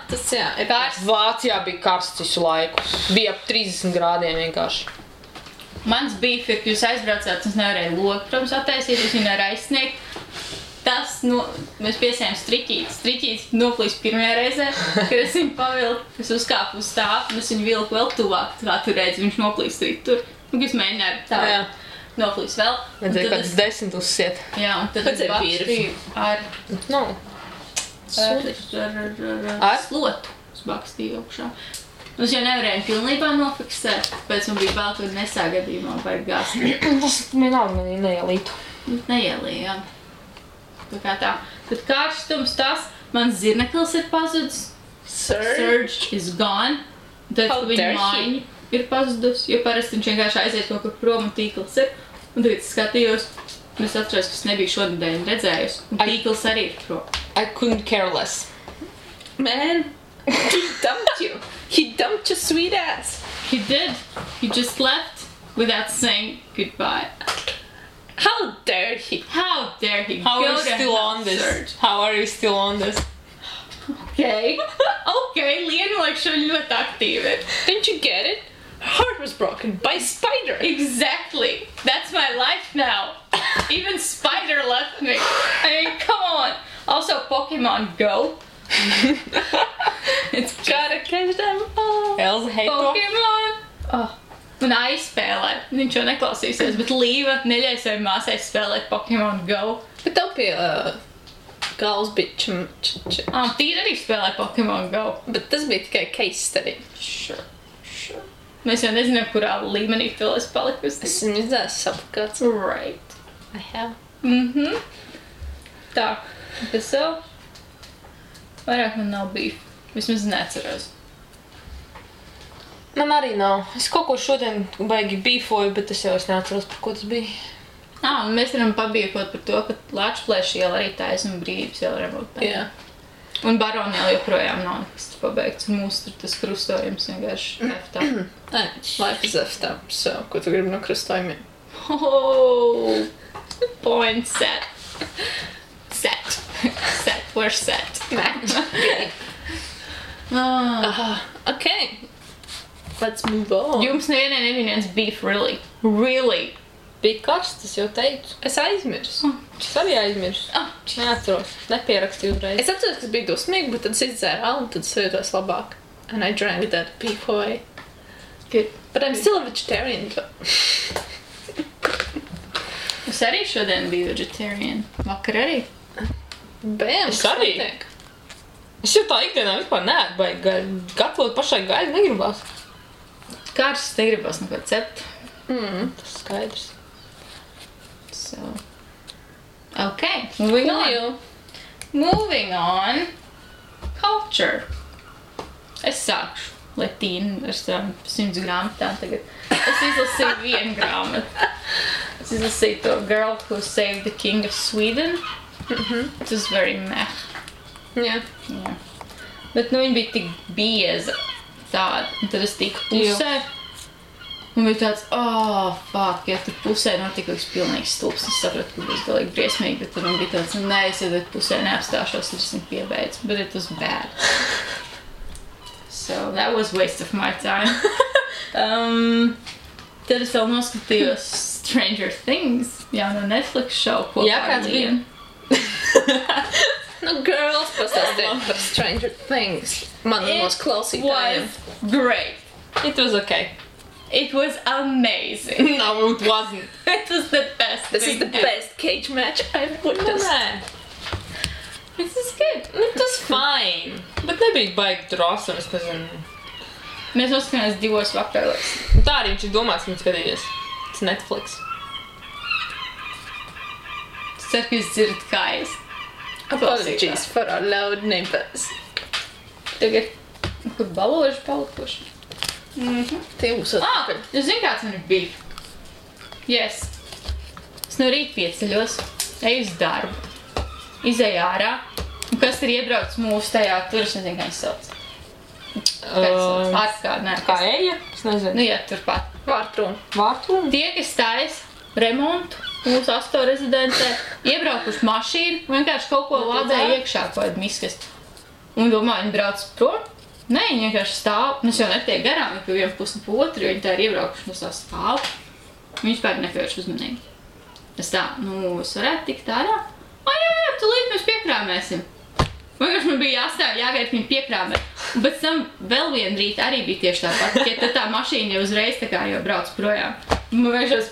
[SPEAKER 1] tas jā. Ir
[SPEAKER 2] Karsts.
[SPEAKER 3] Vācijā bija karsts visu laiku. Bija ap 30 grādiem vienkārši.
[SPEAKER 2] Mans beef ir, ka jūs aizbraucāt, es nevarēju logu, protams, attaisīt, es viņu nevaru aizsniegt. Tas, mēs piesējām striķītes. Striķītes noplīs pirmajā reizē, kad es viņu pavilku, es uzkāpu uz stāvu, un es viņu vilku vēl tuvāk, kā tu redzi, viņš noplīs striķi tur. Un es mēģināju tā,
[SPEAKER 3] Jā.
[SPEAKER 2] noplīs vēl. Un
[SPEAKER 3] Vajadzēja
[SPEAKER 2] tad
[SPEAKER 3] kāds 10 uzsiet.
[SPEAKER 2] Jā, un tad
[SPEAKER 1] Vajadzēja
[SPEAKER 2] es bakstīju ar
[SPEAKER 3] No. Ar?
[SPEAKER 2] slotu. Es bakstīju augšā. Un es jau nevarēju pilnībā nofiksēt, pēc man bija bail, ka nesāgadījumā vajag gāzt.
[SPEAKER 3] Tas vienalga manī neielītu.
[SPEAKER 2] Neielījām. Tā kā tā. Tad karstums tas, mans zirneklis ir pazudis. Surge is gone. Tad
[SPEAKER 1] How
[SPEAKER 2] viņa
[SPEAKER 1] dare he?
[SPEAKER 2] mājiņa ir pazudus, jo parasti viņš vienkārši aiziet kaut kur prom un tīkls ir. Un tagad es skatījos, un es atceros, ka es nebiju šodien redzējusi. Un tīkls arī ir prom.
[SPEAKER 3] I couldn't care less.
[SPEAKER 1] Man, he dumped you. He dumped your sweet ass.
[SPEAKER 2] He did. He just left without saying goodbye.
[SPEAKER 1] How dare he?
[SPEAKER 2] How dare he
[SPEAKER 3] How
[SPEAKER 2] go
[SPEAKER 3] are you
[SPEAKER 2] to
[SPEAKER 3] still
[SPEAKER 2] hell,
[SPEAKER 3] on this?
[SPEAKER 2] Surge?
[SPEAKER 3] How are you still on this?
[SPEAKER 2] Okay. Okay, Lienu laikam ļoti aktīvi.
[SPEAKER 1] Didn't you get it? Her heart was broken by a spider.
[SPEAKER 2] Exactly. That's my life now. Even Spider left me. I mean, come on. Also, Pokemon Go. It's
[SPEAKER 1] Gotta catch them all.
[SPEAKER 3] Elza hate to.
[SPEAKER 2] Pokemon. Oh. Un aizspēlē. Viņš jau neklausīsies, bet Līva neļauj savai māsai spēlēt Pokemon Go.
[SPEAKER 1] Bet tev pie galvas bija
[SPEAKER 2] Tīra arī spēlē Pokemon Go.
[SPEAKER 1] Bet tas bija tikai case study.
[SPEAKER 2] Sure. Mēs jau nezinām, kurā līmenī vēl es palikusi.
[SPEAKER 1] Esmu izdzēs sapakāts.
[SPEAKER 2] Right.
[SPEAKER 1] I have.
[SPEAKER 2] Tā. Kas vēl? Vairāk man nav beef. Vismaz neatceros.
[SPEAKER 3] Man arī nav. Es kaut ko šodien baigi beefoju, bet es jau neatceros, par ko tas bija.
[SPEAKER 2] Un mēs varam pabiekot par to, ka Lačplēša iela arī taisnuma brīvības iela remontē.
[SPEAKER 1] Jā.
[SPEAKER 2] Un Barona iela joprojām nav nekas pabeigts. Un mūs tur tas krustojums vienkārši F-tā.
[SPEAKER 1] Nē, life is F-tā. So, ko tu gribi no krustojumiem?
[SPEAKER 2] Oh, point set. Set. Set. We're set.
[SPEAKER 1] Match. Okay. Let's move on.
[SPEAKER 2] Jums nevienai nebija viens beef, really. Really.
[SPEAKER 3] Bija karsts, es jau teicu.
[SPEAKER 1] Es aizmirsu.
[SPEAKER 3] Es arī aizmirsu. Neatceros. Nepierakstīju uzreiz.
[SPEAKER 1] Es atceros, ka es biju dusmīga, bet tad es izdzēru alu, un tad es jūtos labāk. And I drank that beef away.
[SPEAKER 2] Good.
[SPEAKER 1] But I'm still a vegetarian.
[SPEAKER 2] Es arī šodien biju vegetarian. Vakar arī.
[SPEAKER 1] Bam,
[SPEAKER 3] Es arī.
[SPEAKER 1] notiek?
[SPEAKER 3] Es jau tā ikdienā vispār neētu baigi gaļu. Gatavot pašai gaļu negribās.
[SPEAKER 2] Kāršas negribas neko cept.
[SPEAKER 3] Tas skaidrs.
[SPEAKER 2] So. Okay, moving on. Moving on. Culture. Es sākšu. Latīnu ar savām 100 grāmatām tagad. Es izlasīju vienu grāmatu. Es izlasīju to Girl Who Saved the King of Sweden. It was very meh.
[SPEAKER 1] Jā.
[SPEAKER 2] Jā. Bet nu viņa bija tik bieza tāda. Un tad es tiku pusē. Un bija tāds, fuck, ja tu pusē notika kaut kas pilnīgs stulps. Es sapratu, ka būs galīgi briesmīgi, bet tad man bija tāds, nē, es jau pusē neapstāšos, es esmu piebeidz. But it was bad. So that was waste of my time. Tad es vēl noskatījos Stranger Things, jauno Netflix show, kopā
[SPEAKER 3] Jā, kāds
[SPEAKER 2] ar
[SPEAKER 3] bija?
[SPEAKER 2] Lienu.
[SPEAKER 1] Nu, girls pastāstiet par Stranger Things. Manos klausītājiem.
[SPEAKER 2] Was great.
[SPEAKER 3] It was okay.
[SPEAKER 2] It was amazing.
[SPEAKER 3] No, it wasn't.
[SPEAKER 2] It was the best
[SPEAKER 1] This is
[SPEAKER 2] thing
[SPEAKER 1] the
[SPEAKER 2] ever.
[SPEAKER 1] best cage match I've
[SPEAKER 3] Nu,
[SPEAKER 1] witnessed.
[SPEAKER 3] nē.
[SPEAKER 2] This is good.
[SPEAKER 3] Nu, tas fine. Bet nebija baigi drosme, es nezinu.
[SPEAKER 2] Mēs noskatījāmies 2 vakaros.
[SPEAKER 3] Un tā arī viņš ir domāts, ka viņš skatīties. Tas Netflix.
[SPEAKER 2] Es ceru, ka jūs dzirdat kājas.
[SPEAKER 1] Apologies for our loud neighbors.
[SPEAKER 2] Tagad, kur baloži palikuši.
[SPEAKER 1] Tie būs atpakaļ.
[SPEAKER 2] Jūs zinu, kāds man ir beef? Yes. Es no rīta pieceļos, eju uz darbu, izēju ārā, un kas ir iebraucis mūsu tajā, tur es nezinu, kā viņš sauc. Ārkārt,
[SPEAKER 3] Kā eja? Es nezinu.
[SPEAKER 2] Nu, jā, turpat.
[SPEAKER 1] Vārtrūn.
[SPEAKER 3] Vārtūn?
[SPEAKER 2] Tie, kas taisa remontu mūsu asto rezidentē, iebraukuši mašīnu, vienkārši kaut ko lādēja iekšā, kaut kādu miskast. Un domāju, viņi brauc prom? Nē, viņi vienkārši stāv. Mēs jau netiek garām, viņi pie vienu pusi pa otru, jo viņi tā ir iebraukuši no tā stāv. Viņi vispār nepievērš uzmanīgi. Es tā, es varētu tikt ārā? Jā, tūlīt mēs piekrāmēsim. Vienkārši man bija jāstāv, jāgaida, ka viņi piekrāmē. Un pēc tam vēl vienu rītu arī bija tieši tāpat, ja tad tā mašīna jau uzreiz tā kā jau brauc projām. Man vienkārši,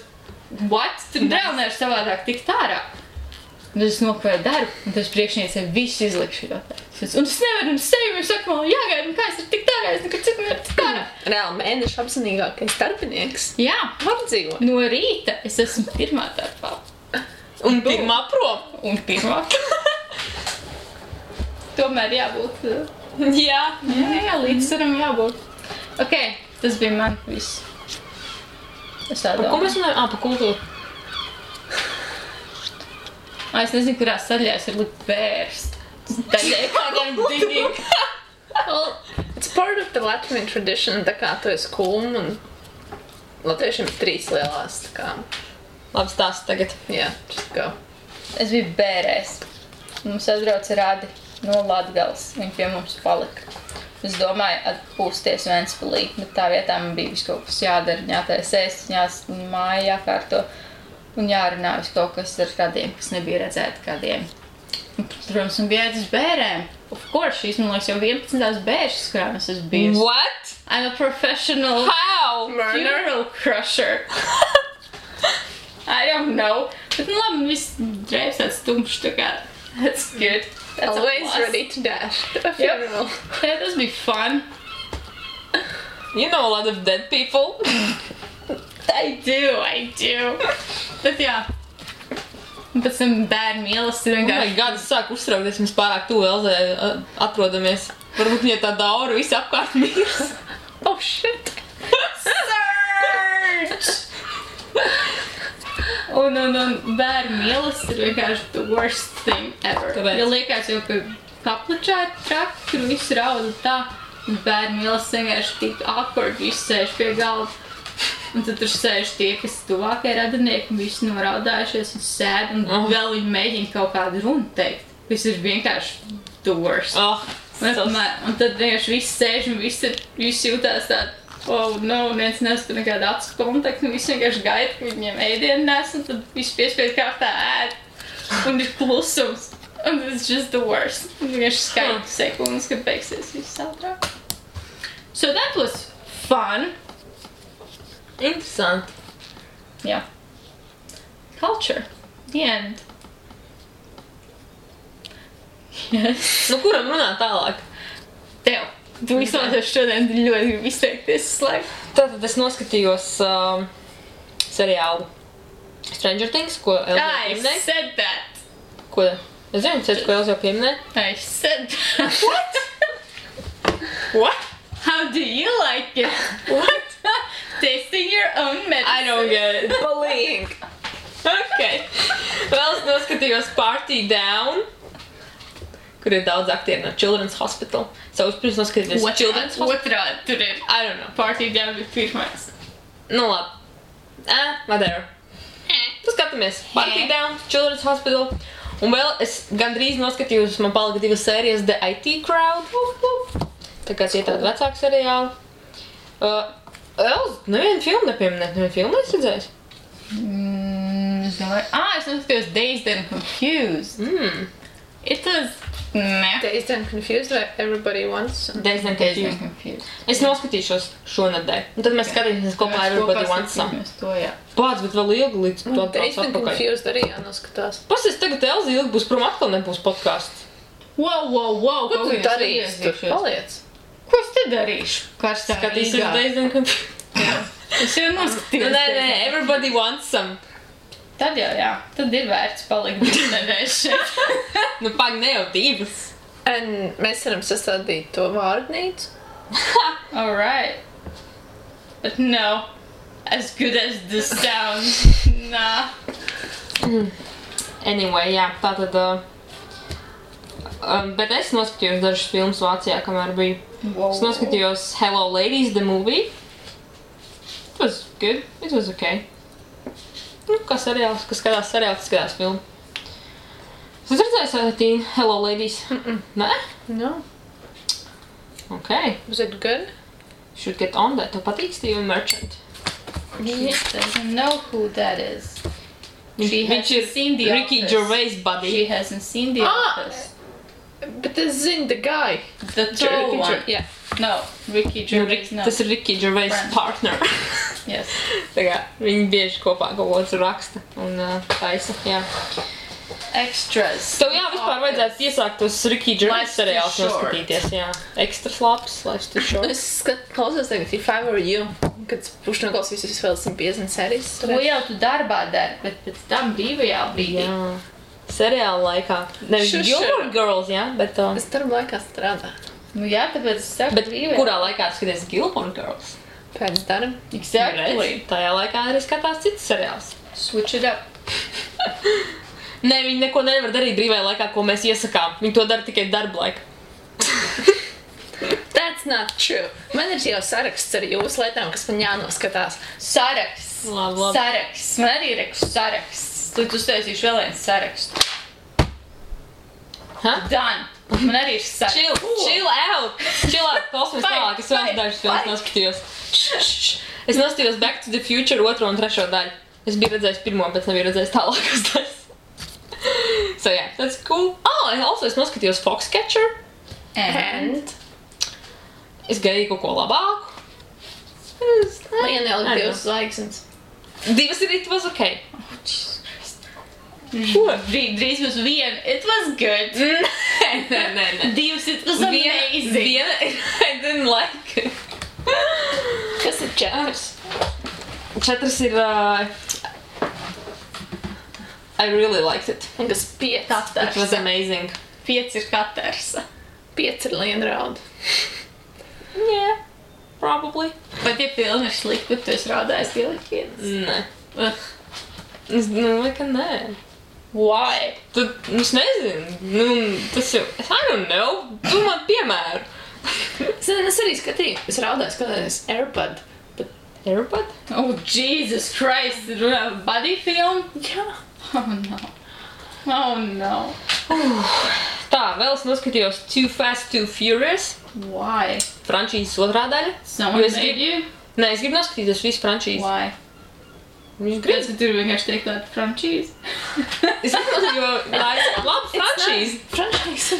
[SPEAKER 2] what? Tur vēl nevar savādāk tikt ārā. Un es nokavēju darbu, un tas priekšniecei visu izlikšu jau tā. Un es nevaru, un sevi viņš saka, man jāgaida, un kā es varu tikt ārā, es nekad citu nevaru tikt ārā.
[SPEAKER 1] Reāli mēneša apzinīgākais darbinieks.
[SPEAKER 2] Jā,
[SPEAKER 1] Var dzīvot.
[SPEAKER 2] no rīta es esmu pirmā darbā.
[SPEAKER 3] Un pirmā prom.
[SPEAKER 2] Un pirmā. Tomēr jābūt.
[SPEAKER 3] Jā.
[SPEAKER 2] Jā, līdzsvaram jābūt. Ok, tas bija man viss. Es tā
[SPEAKER 3] Par ko
[SPEAKER 2] domāju.
[SPEAKER 3] mēs runājam? Par kultūru.
[SPEAKER 2] Es nezinu, kurās sadaļās ir likt bērs. Tādēļ kādiem digging.
[SPEAKER 1] Well, it's part of the Latvian tradition, tā kā tu esi kulm un latviešiem ir 3 lielās, tā kā,
[SPEAKER 3] Labi stāsti tagad.
[SPEAKER 1] yeah, just go.
[SPEAKER 2] Es biju bērēs. Mums atbrauca Radi no Latgales. Viņi pie mums palika. Es domāju, atpūsties Ventspilī, bet tā vietā man bija visu kaut kas jādara, jātais ēst, māja jākārto un jārunā visu kaut kas ar kādiem, kas nebija redzēti kādiem. Un, protams, man bija jāiet uz bērēm. Of course, šīs, man liekas, jau 11. bēršas, kurām es esmu bijusi.
[SPEAKER 3] What?
[SPEAKER 2] I'm a professional
[SPEAKER 3] How?
[SPEAKER 2] funeral crusher. I don't know. Bet, nu labi, viss drēbs tāds tumšs, tā kā, that's good. That's a
[SPEAKER 1] Always
[SPEAKER 2] plus.
[SPEAKER 1] ready to dash to a funeral.
[SPEAKER 2] Yeah, tas bija fun.
[SPEAKER 3] You know a lot of dead people.
[SPEAKER 2] I do. Bet jā. Un pēc tam bērnu mīlestība
[SPEAKER 3] Oh my
[SPEAKER 2] vienkārši.
[SPEAKER 3] god, es sāku uztraukties, mēs pārāk tuvu Elzē atrodamies. Varbūt viņai tā daura visi apkārt mirs.
[SPEAKER 1] Oh shit!
[SPEAKER 2] Search! Un bērnu mīlestība ir vienkārši the worst thing ever.
[SPEAKER 3] Kāpēc?
[SPEAKER 2] Jo liekas jau, ka kapličā ir traki, kur viss rauda tā. Un bērnu mīlestība vienkārši tik awkward, visi sēž pie galda. Un tad tur sēž tie, kas tuvākie radinieki, un visi noraudājušies un sēd, un vēl viņi mēģina kaut kādu runu teikt. Viss ir vienkārši the worst.
[SPEAKER 3] Oh,
[SPEAKER 2] Un tad vienkārši viss sēž un visi jūtās tādi, oh no, viens nesaka nekādu acu kontaktu, un visi vienkārši gaida, ka viņiem ēdienu nes, un tad visi piespēj kārtā ēd. Un ir klusums. Un it's just the worst. Un vienkārši skaita sekundes, kad beigsies viss ātrāk. So that was fun.
[SPEAKER 3] interesanti.
[SPEAKER 2] Yeah. Culture. The end. Yes.
[SPEAKER 3] Nu, kuram runāt tālāk?
[SPEAKER 2] Tev. Tu vismaz šodien ļoti gribi izteikties slēgt.
[SPEAKER 3] Tātad es noskatījos seriālu Stranger Things, ko Elza jau
[SPEAKER 2] I
[SPEAKER 3] pieminēja.
[SPEAKER 2] said that.
[SPEAKER 3] Ko? Es zinu, ko Elza jau pieminēja.
[SPEAKER 2] I said that. What?
[SPEAKER 3] What?
[SPEAKER 2] How do you like it? What? Tasting your own medicine.
[SPEAKER 3] I don't get it.
[SPEAKER 1] Bullying!
[SPEAKER 3] Okay. Vēl es noskatījos Party Down, kur ir daudz aktieri no Children's Hospital. So, es pirms noskatījos Children's Hospital.
[SPEAKER 2] Otrādi tur ir.
[SPEAKER 3] I don't know.
[SPEAKER 2] Party down bija pirmais.
[SPEAKER 3] Nu, labi. Whatever. Tu skatāmies Party Down, Children's Hospital. Un vēl es gandrīz noskatījos, man palika 2 sērijas The IT Crowd. Tā kā tie tādi vecāki seriāli. Nevienu filmu nepieminēt, nevienu filmu es redzējis.
[SPEAKER 2] Es domāju, es noskatījos Dazed and Confused. It was meh.
[SPEAKER 1] Dazed and Confused vai Everybody Wants Some?
[SPEAKER 3] Dazed and
[SPEAKER 2] Dazed and
[SPEAKER 3] Confused.
[SPEAKER 2] Confused.
[SPEAKER 3] Es noskatīšos šonedēļ. Un tad mēs skatīsimies kopā Everybody Wants Some.
[SPEAKER 2] Mēs to, jā.
[SPEAKER 3] Pāc, bet vēl ilgi līdz to
[SPEAKER 1] Dazed and
[SPEAKER 3] atpakaļ.
[SPEAKER 1] Confused arī jānoskatās.
[SPEAKER 3] Pasies, tagad Elza ilgi būs prom, atkal nebūs podcasts.
[SPEAKER 2] Wow.
[SPEAKER 1] Ko tu darīsi tur? Paliec!
[SPEAKER 2] Ko es te darīšu? Karstā
[SPEAKER 3] Skatīsies
[SPEAKER 2] Rīgā.
[SPEAKER 3] Dazed and Confused.
[SPEAKER 2] Es jau noskatījos.
[SPEAKER 3] Nē, Everybody Wants Some.
[SPEAKER 2] Tad jau, jā. Tad ir vērts palikt 2 nedēļas šeit.
[SPEAKER 3] Nu, pag, ne jau 2.
[SPEAKER 1] Un mēs varam sastādīt to vārdnīcu.
[SPEAKER 2] Alright. But no. As good as this sounds. Nah.
[SPEAKER 3] Anyway, jā, tātad Bet es noskatījos dažas filmas Vācijā, kamēr biju.
[SPEAKER 2] Wow.
[SPEAKER 3] Es noskatījos Hello Ladies, the movie. It was good. It was okay. Nu, kā seriāls, kas skatās seriāls, tas skatās filmu. Es redzēju Satīnu Hello Ladies. Nē?
[SPEAKER 1] No.
[SPEAKER 3] Okay.
[SPEAKER 1] Was it good?
[SPEAKER 3] Should get on that. Tev patīk Steve Merchant?
[SPEAKER 2] She doesn't know who that is. She
[SPEAKER 3] Viņš
[SPEAKER 2] hasn't
[SPEAKER 3] ir
[SPEAKER 2] seen The
[SPEAKER 3] Ricky
[SPEAKER 2] Office.
[SPEAKER 3] Gervais buddy.
[SPEAKER 2] She hasn't seen The
[SPEAKER 1] Ah!
[SPEAKER 2] Office.
[SPEAKER 1] Bet es zinu, the guy.
[SPEAKER 2] The tall one.
[SPEAKER 1] Yeah.
[SPEAKER 2] No, Ricky Gervais, no.
[SPEAKER 3] Tas ir Ricky Gervais
[SPEAKER 2] Friend.
[SPEAKER 3] partner.
[SPEAKER 2] Yes.
[SPEAKER 3] Tā kā viņi bieži kopā kaut ko tur raksta un taisa, jā.
[SPEAKER 2] Extras.
[SPEAKER 3] Tev jā, vispār vajadzētu iesākt tos Ricky Gervais
[SPEAKER 2] Life's too
[SPEAKER 3] seriālus
[SPEAKER 2] short.
[SPEAKER 3] noskatīties, jā. Extras labs, Life's Too Short.
[SPEAKER 1] Es klausos tagad If I Were You, kad pušu noklausīs visus vēl 150 sērijas.
[SPEAKER 2] To jau tu darbā dari, bet pēc tam brīvajā brīdī.
[SPEAKER 3] Jā. Seriāla laikā. Nevis
[SPEAKER 1] Sure,
[SPEAKER 3] Gilmore
[SPEAKER 1] sure.
[SPEAKER 3] Girls, jā, bet...
[SPEAKER 1] Es darba laikā strādāju.
[SPEAKER 2] Nu jā, tāpēc es saku
[SPEAKER 3] Bet
[SPEAKER 2] brīvajā.
[SPEAKER 3] kurā laikā skaties Gilmore Girls?
[SPEAKER 1] Pēc darba.
[SPEAKER 2] Exactly.
[SPEAKER 3] Redz, tajā laikā arī skatās cits seriāls.
[SPEAKER 2] Switch it up.
[SPEAKER 3] Nē, viņi neko nevar darīt brīvajā laikā, ko mēs iesakām. Viņi to dara tikai darba laikā.
[SPEAKER 1] That's not true. Man ir jau saraksts ar jūsu lietām, kas man jānoskatās.
[SPEAKER 2] Saraksts.
[SPEAKER 3] Labi.
[SPEAKER 2] Saraksts. Man arī ir saraksts. Tad uztaisīšu vēl viens sarakstu.
[SPEAKER 3] Ha?
[SPEAKER 2] Done. Man arī ir saraksts.
[SPEAKER 3] Chill out! Chill out! Klausmies tālāk, es vēl dažas filmas noskatījos. Es noskatījos Back to the Future 2. un 3. daļu. Es biju redzējis pirmo, bet nebiju redzējis tālākas daļas. So yeah, that's cool. Es noskatījos Foxcatcher.
[SPEAKER 2] And?
[SPEAKER 3] Es gaidīju kaut ko labāku.
[SPEAKER 1] Man ieliek
[SPEAKER 3] I
[SPEAKER 1] 2
[SPEAKER 3] know.
[SPEAKER 1] zvaigznes.
[SPEAKER 3] 2 ir it was okay.
[SPEAKER 2] Drīz būs viena. It was good.
[SPEAKER 3] Nē.
[SPEAKER 2] 2, it was amazing.
[SPEAKER 3] Viena, I didn't like it.
[SPEAKER 1] Kas ir 4?
[SPEAKER 3] 4 ir... I really liked it.
[SPEAKER 1] Un kas 5?
[SPEAKER 3] It was amazing.
[SPEAKER 2] 5 ir katrs.
[SPEAKER 1] 5 ir lienrauda.
[SPEAKER 3] Yeah, probably.
[SPEAKER 2] Vai tie filmi ir slikti, bet tu esi rādājis tie likienas?
[SPEAKER 3] Nē.
[SPEAKER 2] Ugh.
[SPEAKER 3] Es domāju, ka nē.
[SPEAKER 2] Why?
[SPEAKER 3] Es nezinu. Tas jau... I don't know. Tu man piemēru.
[SPEAKER 1] Es arī skatīju. Es raudāju skatījos Airbud.
[SPEAKER 3] Airbud?
[SPEAKER 2] Oh, Jesus Christ. Buddy film?
[SPEAKER 1] Jā.
[SPEAKER 2] Oh, no. Oh, no.
[SPEAKER 3] Tā, vēl es noskatījos Too Fast, Too Furious.
[SPEAKER 2] Why?
[SPEAKER 3] Frančīzes 2. daļa.
[SPEAKER 2] Someone
[SPEAKER 3] Jo es
[SPEAKER 2] made you?
[SPEAKER 3] Nē, es gribu noskatīties visu frančīzi.
[SPEAKER 2] Why?
[SPEAKER 3] Viņš
[SPEAKER 2] Kāds
[SPEAKER 3] grib.
[SPEAKER 2] tur vienkārši teikt tādu frančīzi?
[SPEAKER 3] Es gribu, jo tā ir laba frančīze.
[SPEAKER 1] Franšīze.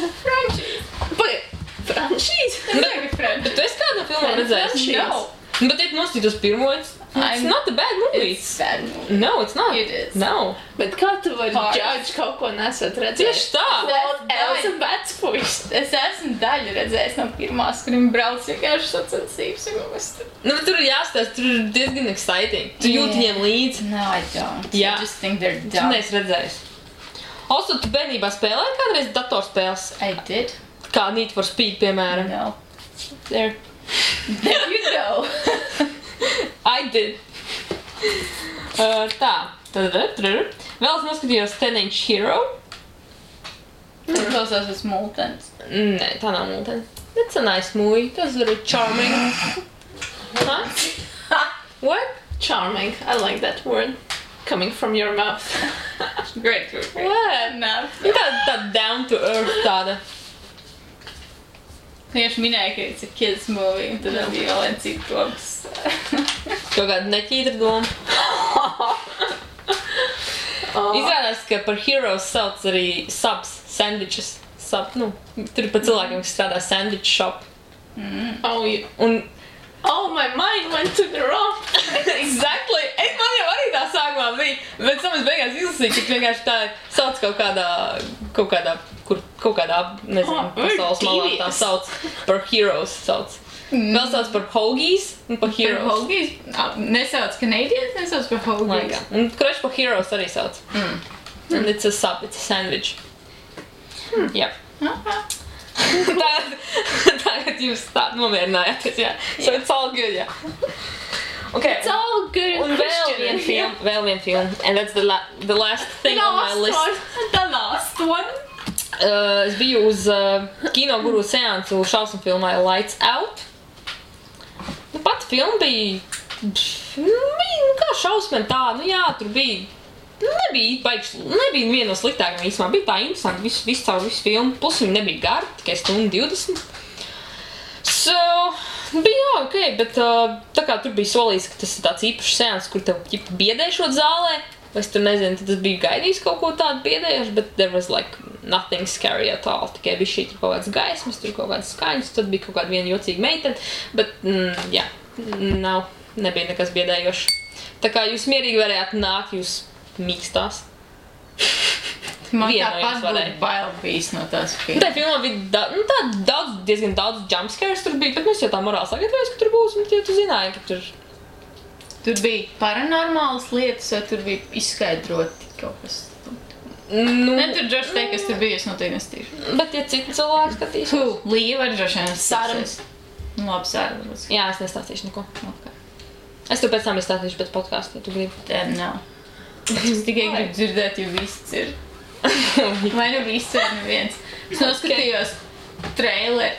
[SPEAKER 1] Pagaid. Franšīze?
[SPEAKER 3] Bet tu esi kādu filmu redzējis?
[SPEAKER 2] No.
[SPEAKER 3] Bet ja tu noskatītos pirmo, it's not a bad movie.
[SPEAKER 2] It's bad movie.
[SPEAKER 3] No, it's not.
[SPEAKER 2] It is.
[SPEAKER 3] No.
[SPEAKER 1] Bet kā tu vari
[SPEAKER 2] Pāris.
[SPEAKER 1] judge kaut ko nesat redzējis?
[SPEAKER 3] Tieši tā.
[SPEAKER 1] Vēl Elsa vecpuis.
[SPEAKER 2] Es esmu daļu redzējis no pirmās, kur viņi brauc vienkārši sacensības.
[SPEAKER 3] Nu, bet tur ir jāstāsta, tur ir diezgan exciting. Tu jūti viņiem līdzi.
[SPEAKER 2] No, I don't.
[SPEAKER 3] Jā.
[SPEAKER 2] I just think they're
[SPEAKER 3] Tu
[SPEAKER 2] dumb.
[SPEAKER 3] neesi redzējis. Also, tu bērnībā spēlēji kādreiz datorspēles?
[SPEAKER 2] I did?
[SPEAKER 3] Kā Need for Speed, piemēram.
[SPEAKER 2] No.
[SPEAKER 3] There.
[SPEAKER 2] There you go.
[SPEAKER 3] I did. Tā. Vēl es noskatījos 10-inch Hero.
[SPEAKER 2] Tas klausās pēc multens.
[SPEAKER 3] Nē, tā nav mūtene. It's a nice movie. Tas very charming. Huh? What?
[SPEAKER 1] Charming. I like that word. Coming from your mouth.
[SPEAKER 2] Great movie.
[SPEAKER 3] What?
[SPEAKER 2] No.
[SPEAKER 3] Tā down to earth tāda.
[SPEAKER 2] Vienkārši minēja, ka it's a kids movie, un tad bija vēl viens cits domas.
[SPEAKER 3] Kaut kāda neķītra doma. Izrādās, ka par heroes sauc arī subs, sandwiches. Tur ir pa cilvēkiem, kas strādā sandwich shop.
[SPEAKER 1] Oh, my mind went to the wrong.
[SPEAKER 3] Exactly! Man jau arī tā sākumā bija, bet es beigās izlasīju, ka vienkārši tā sauc kaut kādā, nezinu, pasaules malā tā sauc, par heroes sauc. Vēl sauc par hoagies un par heroes.
[SPEAKER 2] Par hoagies? Nesauc Canadians, nesauc par hoagies.
[SPEAKER 3] Un kurš par heroes arī sauc. And it's a sub, it's a sandwich. Yep. Tagad jūs tā nomierinājāties, jā. So it's all good, jā. Okay.
[SPEAKER 1] It's all good
[SPEAKER 3] Un vēl vien film. And that's the last thing on my list.
[SPEAKER 2] The last one.
[SPEAKER 3] Es biju uz kino guru seansu šausmu filmai Lights Out. Pat filma bija, kā šausmēm tā, jā, tur bija, nebija viena no sliktākajām īstumā, bija tā interesanti, visu caur visu filmu, plus viņa nebija gara, tikai 1:20. So, bija ok, bet tā kā tur bija solījis, ka tas ir tāds īpašs seans, kur tev biedēšot zālē, es tur nezinu, tad es biju gaidījis kaut ko tādu biedējuši, bet there was like nothing scary at all, tikai bija šī tur kaut kāds gaismas, tur kaut kāds skaņas, tad bija kaut kāda viena jocīga meitene, bet jā, nebija nekas biedējošs. Tā kā jūs mierīgi varējāt nākt, jūs mīkstās.
[SPEAKER 2] Man tāpat būtu bail bijis no tās filmas.
[SPEAKER 3] Tā filmā bija diezgan daudz jumpscares tur bija, bet mēs jau tā morāli sagatavojas, ka tur būs, un tu zināji, ka tur...
[SPEAKER 2] Tur bija paranormālas lietas, vai tur bija izskaidroti kaut kas? Ne, tur droši teikt, kas tur bija, es noteikti nestīšu.
[SPEAKER 3] Bet, ja citi cilvēki skatīs...
[SPEAKER 2] Līja var droši vien stāstīs. Labi, Sāra.
[SPEAKER 3] Jā, es nestāstīšu neko. Okay. Es tev pēc tam izstāstīšu pēc podcastu, ja tu gribi.
[SPEAKER 2] Tad nav. Es tikai gribu dzirdēt, jo viss ir. Vai nu viss vai neviens. Es noskatījos trailer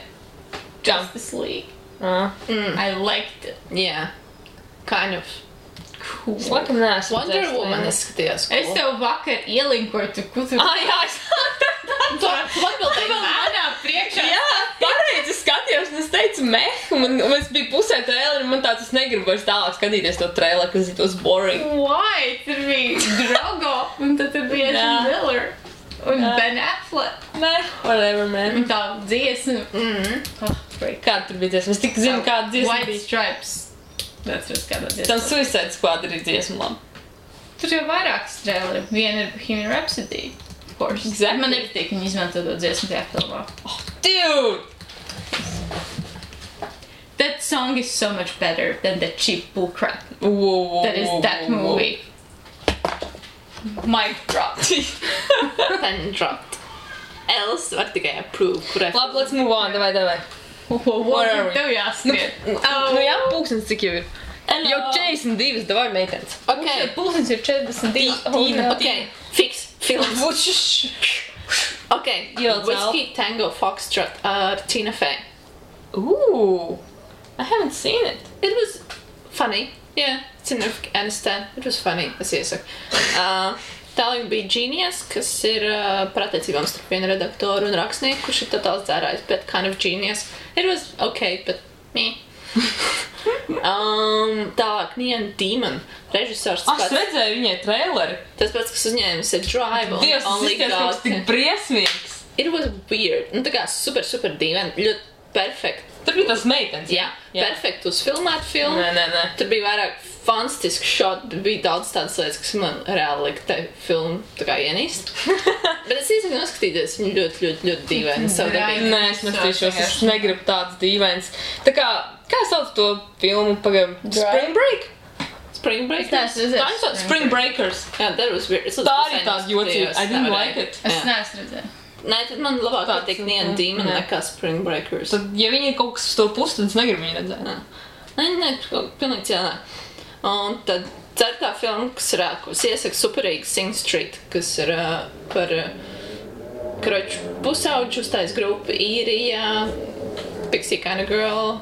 [SPEAKER 2] Justice League. I liked it.
[SPEAKER 1] Yeah. Kind of.
[SPEAKER 2] Cool.
[SPEAKER 3] Es laikam neesmu
[SPEAKER 1] Wonder Woman es skatījos.
[SPEAKER 2] Cool. Es tev vakar ielinkoju, kur tu...
[SPEAKER 3] Jā, es...
[SPEAKER 1] Tu atbildēji
[SPEAKER 2] manā priekšā.
[SPEAKER 3] Jā, pareizi skatījos, un es teicu meh, un es biju pusē traileri, un man tāds, es negribu vairs tālāk skatīties to traileri, because it was boring.
[SPEAKER 2] Why? Tur bija Drogo, un tad tur bija Ezra Miller, un Ben Affleck.
[SPEAKER 3] Whatever, man.
[SPEAKER 2] Un tā dziesma.
[SPEAKER 3] Kāda tur bija dziesma? Es tik zinu, kāda dziesma
[SPEAKER 2] White Stripes. That's just kādā dziesma.
[SPEAKER 3] Tam Suicide Squad ir dziesma labi.
[SPEAKER 2] Tur jau vairākas traileri. Viena ir Bohemian Rhapsody. Of course.
[SPEAKER 3] Exactly.
[SPEAKER 2] Man nepatīk, viņi izmanto to dziesmu tajā filmā.
[SPEAKER 3] Oh, dude!
[SPEAKER 2] That song is so much better than that cheap bullcrap.
[SPEAKER 3] Whoa,
[SPEAKER 2] that is that movie. Mic drop.
[SPEAKER 1] Pen dropped. Else var tikai approve, kurai...
[SPEAKER 3] Labi, let's move on, davai.
[SPEAKER 2] What
[SPEAKER 3] are we?
[SPEAKER 2] Tev jāskrien.
[SPEAKER 3] Nu jā, pūkstens cik jau ir. Jau 42, davai meitenes.
[SPEAKER 1] Okay.
[SPEAKER 2] Pulsens ir 42.
[SPEAKER 1] Okay, fix films. Okay, Whiskey Tango Foxtrot ar Tina Fey.
[SPEAKER 3] Ooh, I haven't seen it.
[SPEAKER 1] It was funny. Yeah, it's in Aniston. It was funny, es iesaku. Tālāk bija Genius, kas ir par attiecībām starp vienu redaktoru un rakstnieku, kurš ir totāls dzērājs, bet kind of genius. It was okay, but meh. Tālāk Neon Demon, režisors.
[SPEAKER 3] Es redzēju viņai traileri.
[SPEAKER 1] Tas pats, kas uzņēmis ir Drive on
[SPEAKER 3] Dievs,
[SPEAKER 1] Only
[SPEAKER 3] tas
[SPEAKER 1] God.
[SPEAKER 3] tik briesmīgs.
[SPEAKER 1] It was weird. Nu tā kā super dīvaini, ļoti perfekt.
[SPEAKER 3] Tur bija tas meitenes.
[SPEAKER 1] Jā, perfekt uzfilmēt filmu.
[SPEAKER 3] Nē.
[SPEAKER 1] Tur bija vairāk fantastiski shot, bet bija daudz tādas lietas, kas man reāli lika te filmu tā kā ienīst. Bet es iesaku noskatīties, viņi ļoti dīvaini savu darbību.
[SPEAKER 3] Nē, es nestīšos, es negribu tādas dīvainas. Tā kā sauc to filmu pagam? Spring Break?
[SPEAKER 1] Spring Break?
[SPEAKER 3] Spring Breakers.
[SPEAKER 1] Yeah, that was weird.
[SPEAKER 3] Tā arī tāda jocīga. I didn't like it.
[SPEAKER 2] Es neesmu redzēju.
[SPEAKER 1] Nē, tad man labāk patīk Neon Demon nekā Spring Breakers.
[SPEAKER 3] Tad, ja viņi ir kaut kas uz to pusi, tad es negribu viņu redzēt.
[SPEAKER 1] Nē, pilnīgi cienā. Un tad ceturtā filma, kas ir, ko es iesaku superīgi Sing Street, kas ir par kroču pusauģu uztais grupu Īrijā, Pixie Kind of Girl,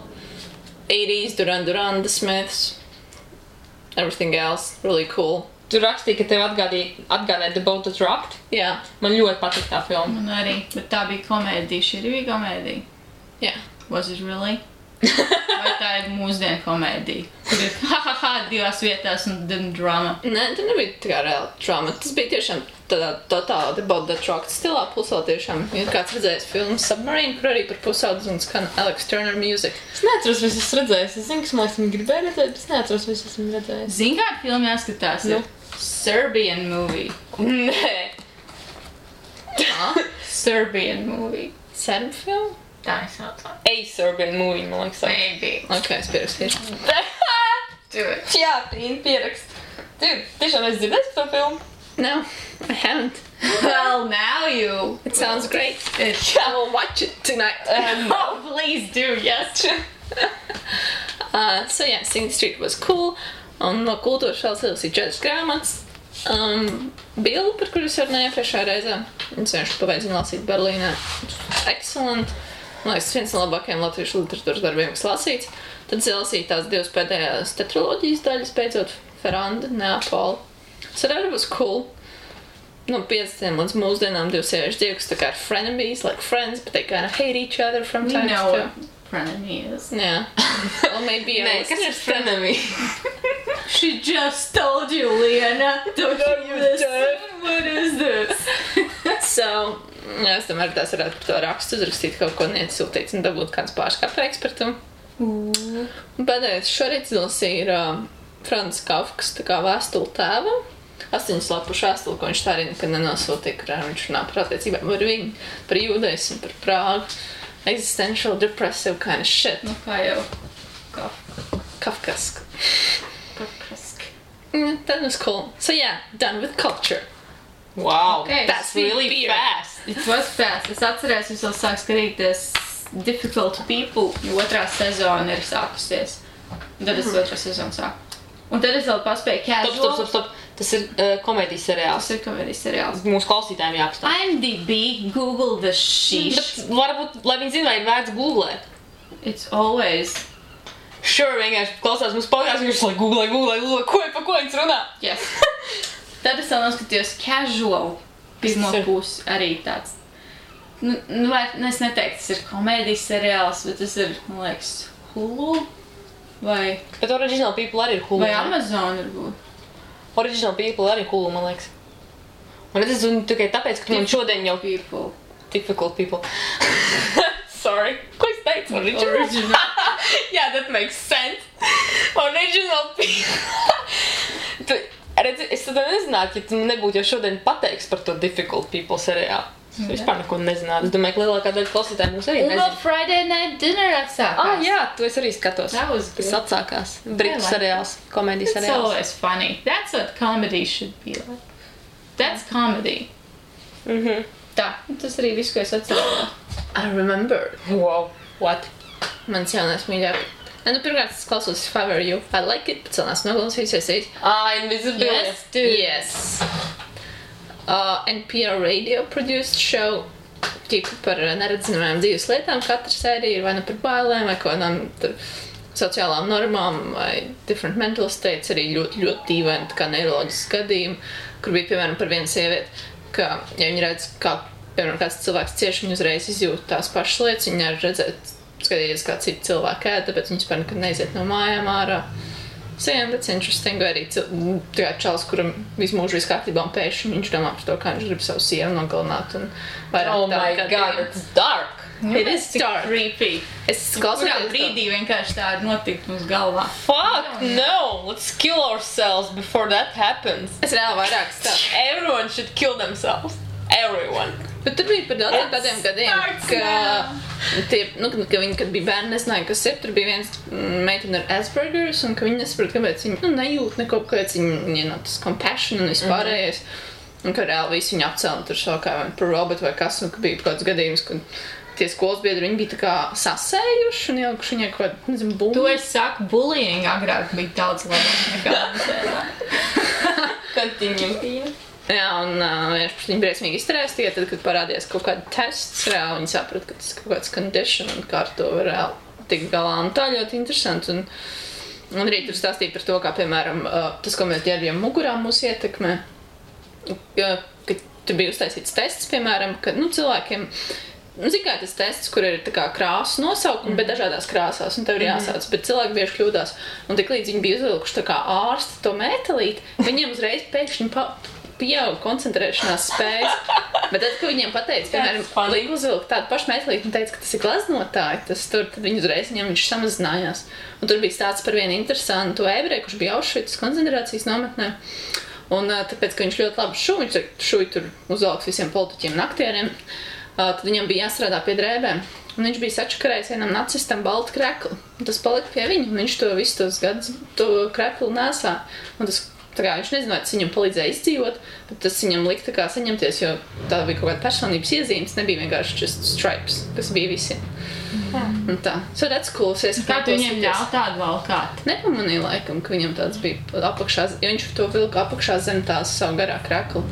[SPEAKER 1] 80s, Duran The Smiths, everything else, really cool.
[SPEAKER 3] Tur rakstīja, ka tev atgādāja The Boat That Rocked.
[SPEAKER 1] Jā.
[SPEAKER 3] Man ļoti patīk tā filma.
[SPEAKER 2] Man arī, bet tā bija komēdija, šī arī bija komēdija.
[SPEAKER 1] Jā.
[SPEAKER 2] Was it really? Vai tā ir mūsdienu komēdija? Tur ir ha-ha-ha divās vietās un then drama.
[SPEAKER 1] Nē, tur nebija tā kā reāla drama. Tas bija tiešām tādā totāli The Boat That Rocked stilā, plus vēl tiešām ir kāds redzējis filmu Submarine, kur arī par pusaudzi un skan Alex Turner music.
[SPEAKER 3] Es neatceros, vai esmu redzējis. Es zinu, kas man liekas, gribēju redzēt, bet es neatceros, vai esmu redzējis.
[SPEAKER 2] Zini, kāda filma jāskatās ir? Serbian movie.
[SPEAKER 1] Nē.
[SPEAKER 2] Serbian movie.
[SPEAKER 1] Serbu filmu?
[SPEAKER 2] Tā es saucā.
[SPEAKER 3] A Serbian movie, man liekas.
[SPEAKER 2] Maybe.
[SPEAKER 1] Ok, es pierakstīšu.
[SPEAKER 2] Do it.
[SPEAKER 3] Jā, Tīna pierakst. Dude, tiešām es dzirdēju to filmu?
[SPEAKER 1] No, I haven't.
[SPEAKER 2] Well, now you.
[SPEAKER 1] It sounds great. I will watch it tonight.
[SPEAKER 2] Oh, please do, yes.
[SPEAKER 1] So yeah, Sing Street was cool. Un no kultūras vēl cilvēks ir 4 grāmatas. Bildu, par kuru es runāju iepriekšējā reizē. Es vienkārši pabeidzinu lasīt Berlīnē. Excellent. Man liekas, tas viens no labākajiem latviešu literatūras darbiem, kas lasīts. Tad es lasīju tās 2 pēdējās tetraloģijas daļas, beidzot Ferranda, Neapola. Tas arī was cool. No 50 līdz mūsdienām 2 sieviešu dzīvi, kas tā kā ir frenemies, like friends, but they kind of hate each other from time to time.
[SPEAKER 2] Frenemy is.
[SPEAKER 1] Yeah. Well, maybe
[SPEAKER 3] Nē, kas ir frenemy?
[SPEAKER 2] She just told you, Liena. Don't you listen? What is this?
[SPEAKER 1] So, jā, es domāju, tās varētu par to rakstu uzrakstīt kaut ko nieciltīts un dabūt kāds pārskapreiks par to. Un pēdējais šorīt izlasīja ir Francis Kafkas tā kā vēstuli tēvam. 8 lapušu vēstuli, ko viņš tā arī nekad nenosūtīja, kurā viņš runā par attiecībām ar viņu, par jūdaismu, par Prāgu. Existential, depressive kind of shit.
[SPEAKER 2] Nu, kā jau
[SPEAKER 1] Kafkask.
[SPEAKER 2] Kafkask.
[SPEAKER 1] That was cool. So yeah, done with culture.
[SPEAKER 3] Wow,
[SPEAKER 2] Okay,
[SPEAKER 3] that's really
[SPEAKER 1] beer.
[SPEAKER 3] fast.
[SPEAKER 2] It was fast. Es atcerēs, es vēl sāku skatīties Difficult People, jo 2. sezona ir sākusies. Un tad es 2. sezonu sāku. Un tad es vēl paspēju Casual.
[SPEAKER 3] Stop. Tas ir komēdijas seriāls.
[SPEAKER 2] Tas ir komēdijas seriāls.
[SPEAKER 3] Mūsu klausītājiem jāapstāv.
[SPEAKER 2] IMDb, Google the sheesh.
[SPEAKER 3] Varbūt, lai viņi zina, vai ir vērts googlēt.
[SPEAKER 2] It's always...
[SPEAKER 3] Sure, vienkārši klausās mūsu podcasts, viņš lai googlē, pa ko viņš runā.
[SPEAKER 2] Yes. Tad es vēl noskatījos Casual. Pirmo
[SPEAKER 3] Tas ir-
[SPEAKER 2] pusi arī tāds. Es neteiktu, tas ir komēdijas seriāls, bet tas ir, man liekas, Hulu vai
[SPEAKER 3] Bet Original People arī ir Hulu.
[SPEAKER 2] vai
[SPEAKER 3] ne?
[SPEAKER 2] Amazon varbūt.
[SPEAKER 3] Original People arī ir Hulu, man liekas. Un es zinu tikai tāpēc, ka man šodien jau
[SPEAKER 2] People.
[SPEAKER 3] Difficult People. Sorry. Ko es teicu?
[SPEAKER 2] Original.
[SPEAKER 3] Yeah, that makes sense. Original People. Redzi, es tad nezinātu, ja tu nebūtu jau šodien pateiks par to Difficult People seriālu. Es vispār neko nezinātu. Es domāju, ka lielākā daļa klausītāji mums arī
[SPEAKER 2] Un vēl
[SPEAKER 3] nezina.
[SPEAKER 2] Friday Night Dinner atsākās.
[SPEAKER 3] Jā, to es arī skatos.
[SPEAKER 2] That was
[SPEAKER 3] Tas
[SPEAKER 2] good.
[SPEAKER 3] atsākās. Britu
[SPEAKER 2] I like
[SPEAKER 3] seriāls, komēdijas
[SPEAKER 2] It's
[SPEAKER 3] seriāls.
[SPEAKER 2] always funny. That's what comedy should be like. That's comedy. Tā, tas arī viss, ko es atceros.
[SPEAKER 1] I remember.
[SPEAKER 3] Wow. What?
[SPEAKER 1] Mans jaunais mīļāk. Pirmkārt, es klausos If I Were You. I like it, bet vēl neesmu noklausījusies.
[SPEAKER 3] Invisibility.
[SPEAKER 2] Yes, dude.
[SPEAKER 1] Yes. NPR radio produced show tipu par neredzamajām dzīves lietām. Katra sērija ir vai nu par bailēm, vai kādām sociālām normām, vai different mental states, arī ļoti, ļoti dīvaini, kā neiroloģiski gadījumi, kur bija, piemēram, par vienu sievieti, ka, ja viņi redz, kā, piemēram, kāds cilvēks cieši, viņi uzreiz izjūt tās pašas lietas, viņi arī redzēt, skatīties, kā citi cilvēki ēd, tāpēc viņi spēr nekad neiziet no mājām ārā. So, yeah, that's interesting. Vai arī čals, kuram visu mūžu viss kārtībā un pēkšņi viņš domā par to, kā viņš grib savu sievu nogalināt. Un
[SPEAKER 3] Oh my god, it's dark.
[SPEAKER 1] It is dark.
[SPEAKER 2] Creepy.
[SPEAKER 1] Es
[SPEAKER 2] Kurā
[SPEAKER 1] klausos
[SPEAKER 2] brīdī vienkārši tā ir notikt mums galvā.
[SPEAKER 3] Fuck no! Let's kill ourselves before that happens.
[SPEAKER 1] Es reāli vairāk stāstu.
[SPEAKER 3] Everyone should kill themselves. Everyone.
[SPEAKER 1] Bet tur bija par daudziem tādiem gadiem, ka viņi, kad bija bērni, nezināja, kas ir. Tur bija viens meitene ar Aspergers, un ka viņi nesaprot, kāpēc viņi nejūt neko, kāpēc viņi no tas compassion un vispārējais. Un ka reāli visi viņi apcēla tur savu kā par robotu vai kas, un ka bija kāds gadījums, kad tie skolas biedri, viņi bija tā kā sasējuši un ielikuši viņai kaut kādu, nezinu, bumbu.
[SPEAKER 2] To es saku, bullying agrāk bija daudz labāk nekā mums.
[SPEAKER 3] Continue.
[SPEAKER 1] Jā, un viņi briesmīgi izturējās tikai tad, kad parādījās kaut kāda tests, reāli viņi saprata, ka tas ir kaut kāds condition un kā ar to var reāli tikt galā. Un tā ļoti interesanti. Un arī tur stāstīja par to, kā, piemēram, tas, ko mēs ģērbjam mugurā mūs ietekmē, ka tur bija uztaisīts tests, piemēram, ka, cilvēkiem, zin kā tas tests, kur ir tā kā krāsu nosaukumi, bet dažādās krāsās, un tev ir jāsauc, bet cilvēki bieži kļūdās. Un tik līdz viņi bija uzvilkuši tā kā ārsti to mētelīti, viņiem uzreiz pēkšņi pieauga koncentrēšanās spējas. Bet tad, kad viņiem pateica, piemēram, liek uzvilkt tādu pašu mētelīti un teica, ka tas ir gleznotāji, tad viņi uzreiz viņam viņš samazinājās. Un tur bija stāsts par vienu interesantu ebreju, kurš bija Auschwitz koncentrācijas nometnē. Un tāpēc, ka viņš ļoti labi šuj tur uzvalks visiem politiķiem un aktieriem, tad viņam bija jāstrādā pie drēbēm. Un viņš bija sačakarējis vienam nacistam baltu kreklu. Un tas palika pie viņa, un viņš to visu tos gadus to kreklu nesā. Un tas Tā kā viņš nezināja, tas viņam palīdzēja izdzīvot, bet tas viņam lika tā kā saņemties, jo tā bija kaut kāda personības iezīmes, nebija vienkārši just stripes, kas bija visiem. Un tā. So that's cool.
[SPEAKER 2] Kā tu viņiem ļauj tādu valkāt?
[SPEAKER 1] Nepamanīju laikam, ka viņam tāds bija apakšā, jo viņš to vilka apakšā zem tās savu garā kreklu,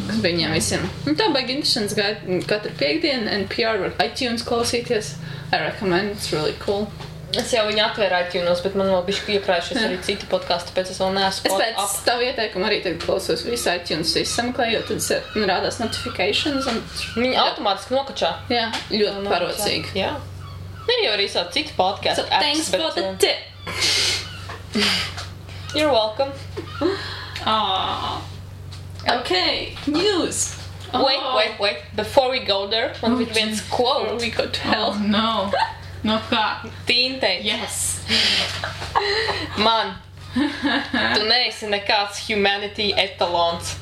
[SPEAKER 1] kas bija viņiem visiem. Un tā baigi interesants gaida katru piekdienu, NPR var iTunes klausīties. I recommend, it's really cool.
[SPEAKER 3] Es jau viņu atvēru iTunes, bet man vēl bišķi iekrājušies arī citi podkasti, tāpēc es vēl neesmu
[SPEAKER 1] Es pēc tavu ieteikumu arī tagad klausos visu iTunes sameklēju, jo tad rādās notifications un...
[SPEAKER 3] Viņi automātiski nokačā.
[SPEAKER 1] Jā, ļoti parocīgi.
[SPEAKER 3] Jā. Ir jau arī savu citu podcastu
[SPEAKER 1] So thanks for the tip.
[SPEAKER 3] You're welcome.
[SPEAKER 1] Okay, news.
[SPEAKER 3] Wait. Before we go there, man ir viens quote.
[SPEAKER 1] We go to hell.
[SPEAKER 2] Oh, no. No kā?
[SPEAKER 3] Tīntei.
[SPEAKER 2] Yes.
[SPEAKER 3] Man, tu neesi nekāds humanity etalons.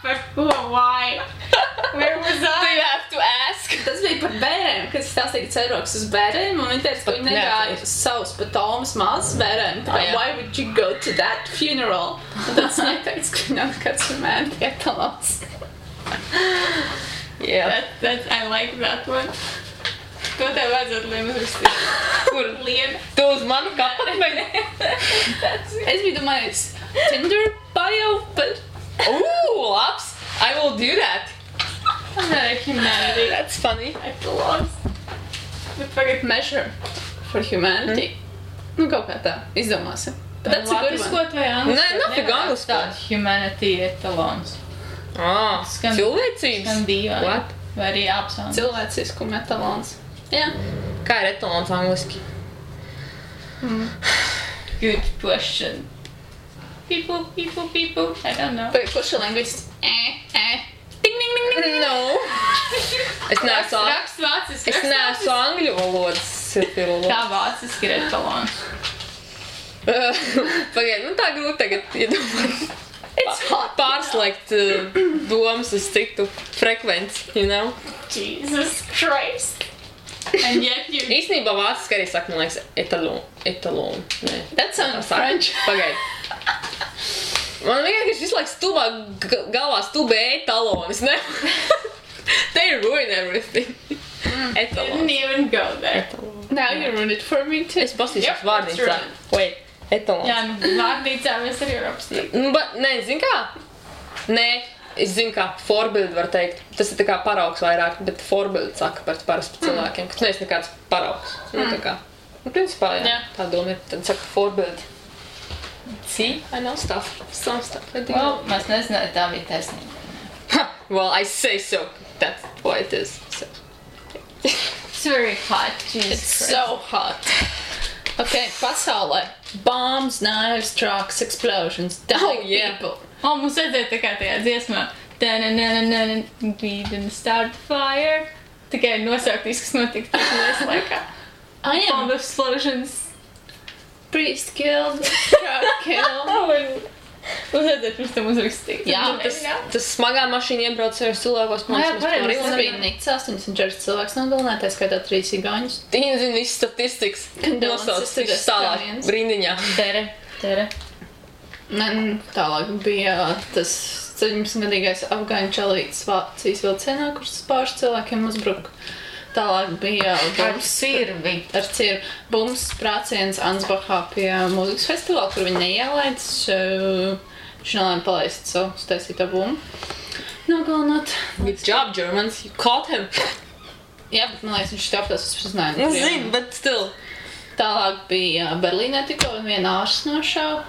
[SPEAKER 2] Par ko? Why? Where was
[SPEAKER 3] Do
[SPEAKER 2] I?
[SPEAKER 3] you have to ask?
[SPEAKER 1] Tas bija par bērēm, kas stāstīja ceroks uz bērēm, un viņi teica, ka viņi negāja savus pat Tomas mazas bērēm. Tā kā, why would you go to that funeral? Un tas neteica, ka viņi nav nekāds humanity etalons.
[SPEAKER 3] Yeah.
[SPEAKER 2] I like that one. Ko tev vajadzētu Liem uzrakstīt?
[SPEAKER 3] Kur?
[SPEAKER 2] Liem.
[SPEAKER 3] Tu uz manu kapatmeņu?
[SPEAKER 1] Es biju domājis Tinder bio, but...
[SPEAKER 3] Labs. I will do that.
[SPEAKER 2] I'm not a humanity.
[SPEAKER 3] That's funny.
[SPEAKER 2] I belongs. Bet pagad
[SPEAKER 1] Measure for humanity. Nu, kaut kā tā, izdomāsim. But that's a good one.
[SPEAKER 2] Latviskot vai angliskot?
[SPEAKER 3] Nē, nafig angliskot.
[SPEAKER 2] Tāds humanity etalons. Skan-
[SPEAKER 3] Cilvēcības?
[SPEAKER 2] Skan dīvaini.
[SPEAKER 3] What?
[SPEAKER 2] Vai arī apsauns.
[SPEAKER 1] Cilvēcisku metalons. Jā.
[SPEAKER 3] Kā ir etalons angliski?
[SPEAKER 2] Good question. People. I don't know.
[SPEAKER 1] Vai kurš ir lingvists? Ding, ding, ding, ding.
[SPEAKER 3] No. Es neesmu
[SPEAKER 2] Raksts vāciski.
[SPEAKER 3] Es neesmu angļu valodas filologs.
[SPEAKER 2] Kā vāciski ir etalons?
[SPEAKER 3] Pagaid, tā grūti tagad iedomāt.
[SPEAKER 1] It's hot.
[SPEAKER 3] Pārslēgt domas uz citu frekvenci, you know?
[SPEAKER 2] Jesus Christ. And yet you...
[SPEAKER 3] Īstenībā vāciski arī saka, man liekas, etalon. Nē.
[SPEAKER 1] That sounds
[SPEAKER 3] Saka.
[SPEAKER 1] French.
[SPEAKER 3] Pagaid. Man vienkārši visu laiku stulbā galvā stulbē etalonis, ne? They ruin everything.
[SPEAKER 2] Didn't
[SPEAKER 3] Etalons.
[SPEAKER 2] even go there.
[SPEAKER 1] Now you ruined it for me too.
[SPEAKER 3] Es pastīšos
[SPEAKER 2] Yep,
[SPEAKER 3] vārnīcā.
[SPEAKER 2] that's
[SPEAKER 3] Wait, etalons.
[SPEAKER 2] Jā, vārnīcā mēs arī varam apstīt.
[SPEAKER 3] Nē, zin kā? Nē, es zinu kā, forbildi var teikt. Tas ir tā kā paraugs vairāk, bet forbildi saka par parasti cilvēkiem, ka tu neesi nekāds paraugs. Nu, tā kā. Nu, principā, jā, tā doma ir. Tad saka forbildi. See, I know stuff. Some stuff. I do.
[SPEAKER 2] Well, mēs nezināju, tā bija taisnība.
[SPEAKER 3] Well, I say so. That's what it is. So.
[SPEAKER 2] It's very hot, Jesus
[SPEAKER 1] It's
[SPEAKER 2] Christ.
[SPEAKER 1] so hot. Okay, pasaulē. Bombs, knives, trucks, explosions, dying
[SPEAKER 3] Oh, yeah.
[SPEAKER 1] people.
[SPEAKER 2] O, mums vajadzēja tā kā tajā dziesmā. We didn't start the fire. Tikai nosaukt viss, kas notika tajā laikā.
[SPEAKER 1] I am
[SPEAKER 2] Bomb explosions.
[SPEAKER 1] priest killed, truck killed.
[SPEAKER 2] Mums vajadzēja pirms tam uzrakstīt.
[SPEAKER 1] Jā,
[SPEAKER 3] Tas smagā mašīna iebrauc savos cilvēkos.
[SPEAKER 1] Jā,
[SPEAKER 3] mēs
[SPEAKER 1] pareizi.
[SPEAKER 3] arī
[SPEAKER 1] Tas bija Nikts 84 cilvēks nogalināts, tā skaitā 3 igauņus.
[SPEAKER 3] Viņi zina visu statistikas.
[SPEAKER 1] Condolences
[SPEAKER 3] Nosauc
[SPEAKER 1] to the
[SPEAKER 3] viņš tālāk
[SPEAKER 1] Estonians.
[SPEAKER 3] rindiņā.
[SPEAKER 2] Tere.
[SPEAKER 1] Tālāk bija tas 17-gadīgais afgāņu čalītis Vācijas vilcienā, kurš pāris cilvēkiem uzbruka. Tālāk bija
[SPEAKER 2] Ar sirvi.
[SPEAKER 1] ar cirvi bums sprāciens Ansbachā pie mūzikas festivāla, kur viņi neielaids. Viņš nelēma palaist savu staisīto bumbu. Nogalināt.
[SPEAKER 3] Good job, Germans. You caught him.
[SPEAKER 1] Jā, bet man liekas, viņš tāpēc uzpazināja.
[SPEAKER 3] Nu, zinu, bet still.
[SPEAKER 1] Tālāk bija Berlīnē tikko viena ārsts nošauja.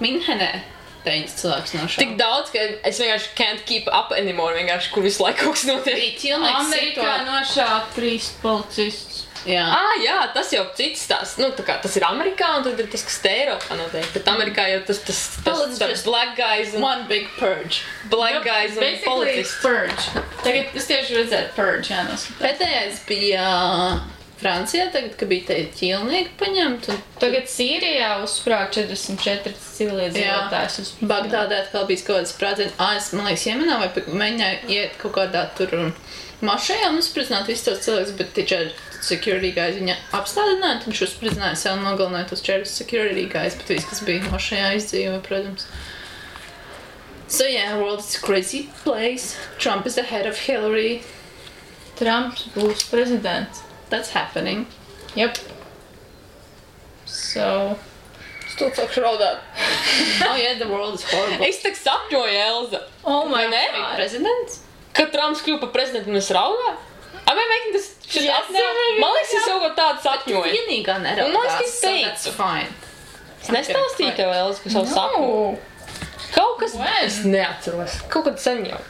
[SPEAKER 1] Minhenē 9 cilvēks
[SPEAKER 3] Tik
[SPEAKER 1] nošauja.
[SPEAKER 3] daudz, ka es vienkārši can't keep up anymore, vienkārši, kur visu laiku kaut kas notiek.
[SPEAKER 1] Bija ķilnieks
[SPEAKER 2] Amerikā
[SPEAKER 1] situācija.
[SPEAKER 2] nošāva 3 policistus.
[SPEAKER 1] Jā.
[SPEAKER 3] Jā, tas jau cits tās. Nu, tā kā tas ir Amerikā, un tad ir tas, kas te Eiropā notiek. Bet Amerikā jau tas
[SPEAKER 1] Let's just-
[SPEAKER 3] black guys un
[SPEAKER 1] One big purge.
[SPEAKER 2] Basically,
[SPEAKER 3] policists.
[SPEAKER 2] purge. Tagad es tieši redzēju purge, jānoskatās.
[SPEAKER 1] Pēdējais bija Francijā, tagad, kad bija te ķilnieki paņemt, un
[SPEAKER 2] Tagad Sīrijā uzsprāga 44 civiliedzīvotājus uz
[SPEAKER 1] Bagdādē atkal bija kaut kāds sprādziens. Es, man liekas, Jemenā vai mēģināju iet kaut kādā tur mašajā un uzspridzināt visus tos cilvēkus, bet taču tad security guys viņa apstādināja, tad viņš uzspridzināja sev un nogalināja tos 4 security guys, bet viss, kas bija mašajā izdzīvoja, protams. So yeah, world is a crazy place. Trump is the head of Hillary.
[SPEAKER 2] Trumps būs prezidents.
[SPEAKER 1] That's happening.
[SPEAKER 2] Yep. So...
[SPEAKER 3] Stūd sākšu raudāt.
[SPEAKER 1] Oh yeah, the world is horrible.
[SPEAKER 3] Es tak sapņoju, Elza.
[SPEAKER 2] Oh my
[SPEAKER 3] Vai ne?
[SPEAKER 2] God.
[SPEAKER 1] Presidents?
[SPEAKER 3] Kad Trumps kļuva par prezidentu un es raudāju? Am I making this shit up now? Man liekas, es kaut ko tādu sapņoju.
[SPEAKER 1] Vienīgā
[SPEAKER 3] Un man liekas,
[SPEAKER 1] neraudās,
[SPEAKER 3] es
[SPEAKER 1] so
[SPEAKER 3] teicu.
[SPEAKER 1] that's fine.
[SPEAKER 3] Es nestāstīju tev, Elza, par savu sapņu. Kaut kas...
[SPEAKER 2] When?
[SPEAKER 3] Es neatceros. Kaut kad sen jau.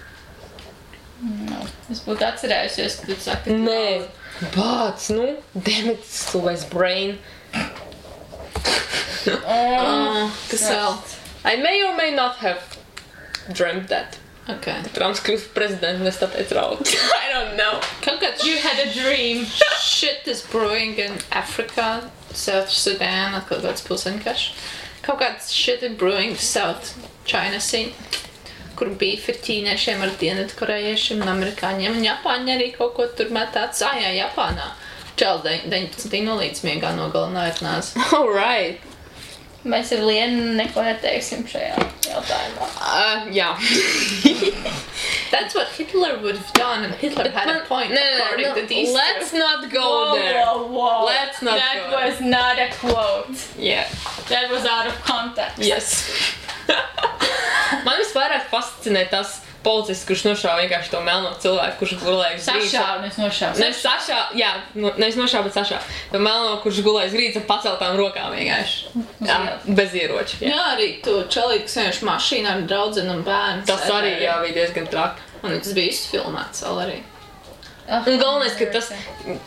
[SPEAKER 2] No. Es būtu atcerējusies, ka tu saki, ka
[SPEAKER 3] Nē. Bāc, nu. Damn it, stulbais brain. Kas vēl? I may or may not have dreamt that.
[SPEAKER 1] Okay.
[SPEAKER 3] Trumps kļūst par prezidentu un es tāpēc raudu. I don't know.
[SPEAKER 1] Kaut kāds
[SPEAKER 2] You had a dream.
[SPEAKER 1] shit is brewing in Africa, South Sudan, kaut kāds pilsēnkarš. Kaut kāds shit is brewing South China Sea, kur beef ir ķīniešiem ar dienvidkorejiešiem un amerikāņiem, un Japāņi arī kaut ko tur metāts. Jā, Japānā. Čels 19. nolīdz miegā nogalināja ar nāzi.
[SPEAKER 3] Alright.
[SPEAKER 2] Mēs ar Lienu neko neteiksim šajā jautājumā.
[SPEAKER 3] Jā.
[SPEAKER 1] That's what Hitler would have done, and Hitler had a point, according to these
[SPEAKER 3] Let's
[SPEAKER 1] two.
[SPEAKER 3] not go there.
[SPEAKER 2] Whoa.
[SPEAKER 3] Let's not
[SPEAKER 2] That
[SPEAKER 3] go.
[SPEAKER 2] was not a quote.
[SPEAKER 3] Yeah.
[SPEAKER 2] That was out of context.
[SPEAKER 3] Yes. Man visvairāk fascinē tas policists, kurš nošāva vienkārši to melno cilvēku, kurš gulēja uz grīdas.
[SPEAKER 2] Sašāva, nes nošāva.
[SPEAKER 3] Nevis sašā, jā, nevis nošāva, bet sašā. To melno, kurš gulēja uz grīdas ar paceltām rokām vienkārši. Jā, bez ieroča. Jā.
[SPEAKER 1] Jā, arī tu čelīgi, kas vienkārši mašīnā ar draudzenu un bērnu.
[SPEAKER 3] Tas arī, jā, bija diezgan traki.
[SPEAKER 1] Un tas bija izfilmēts vēl arī.
[SPEAKER 3] Un galvenais, ka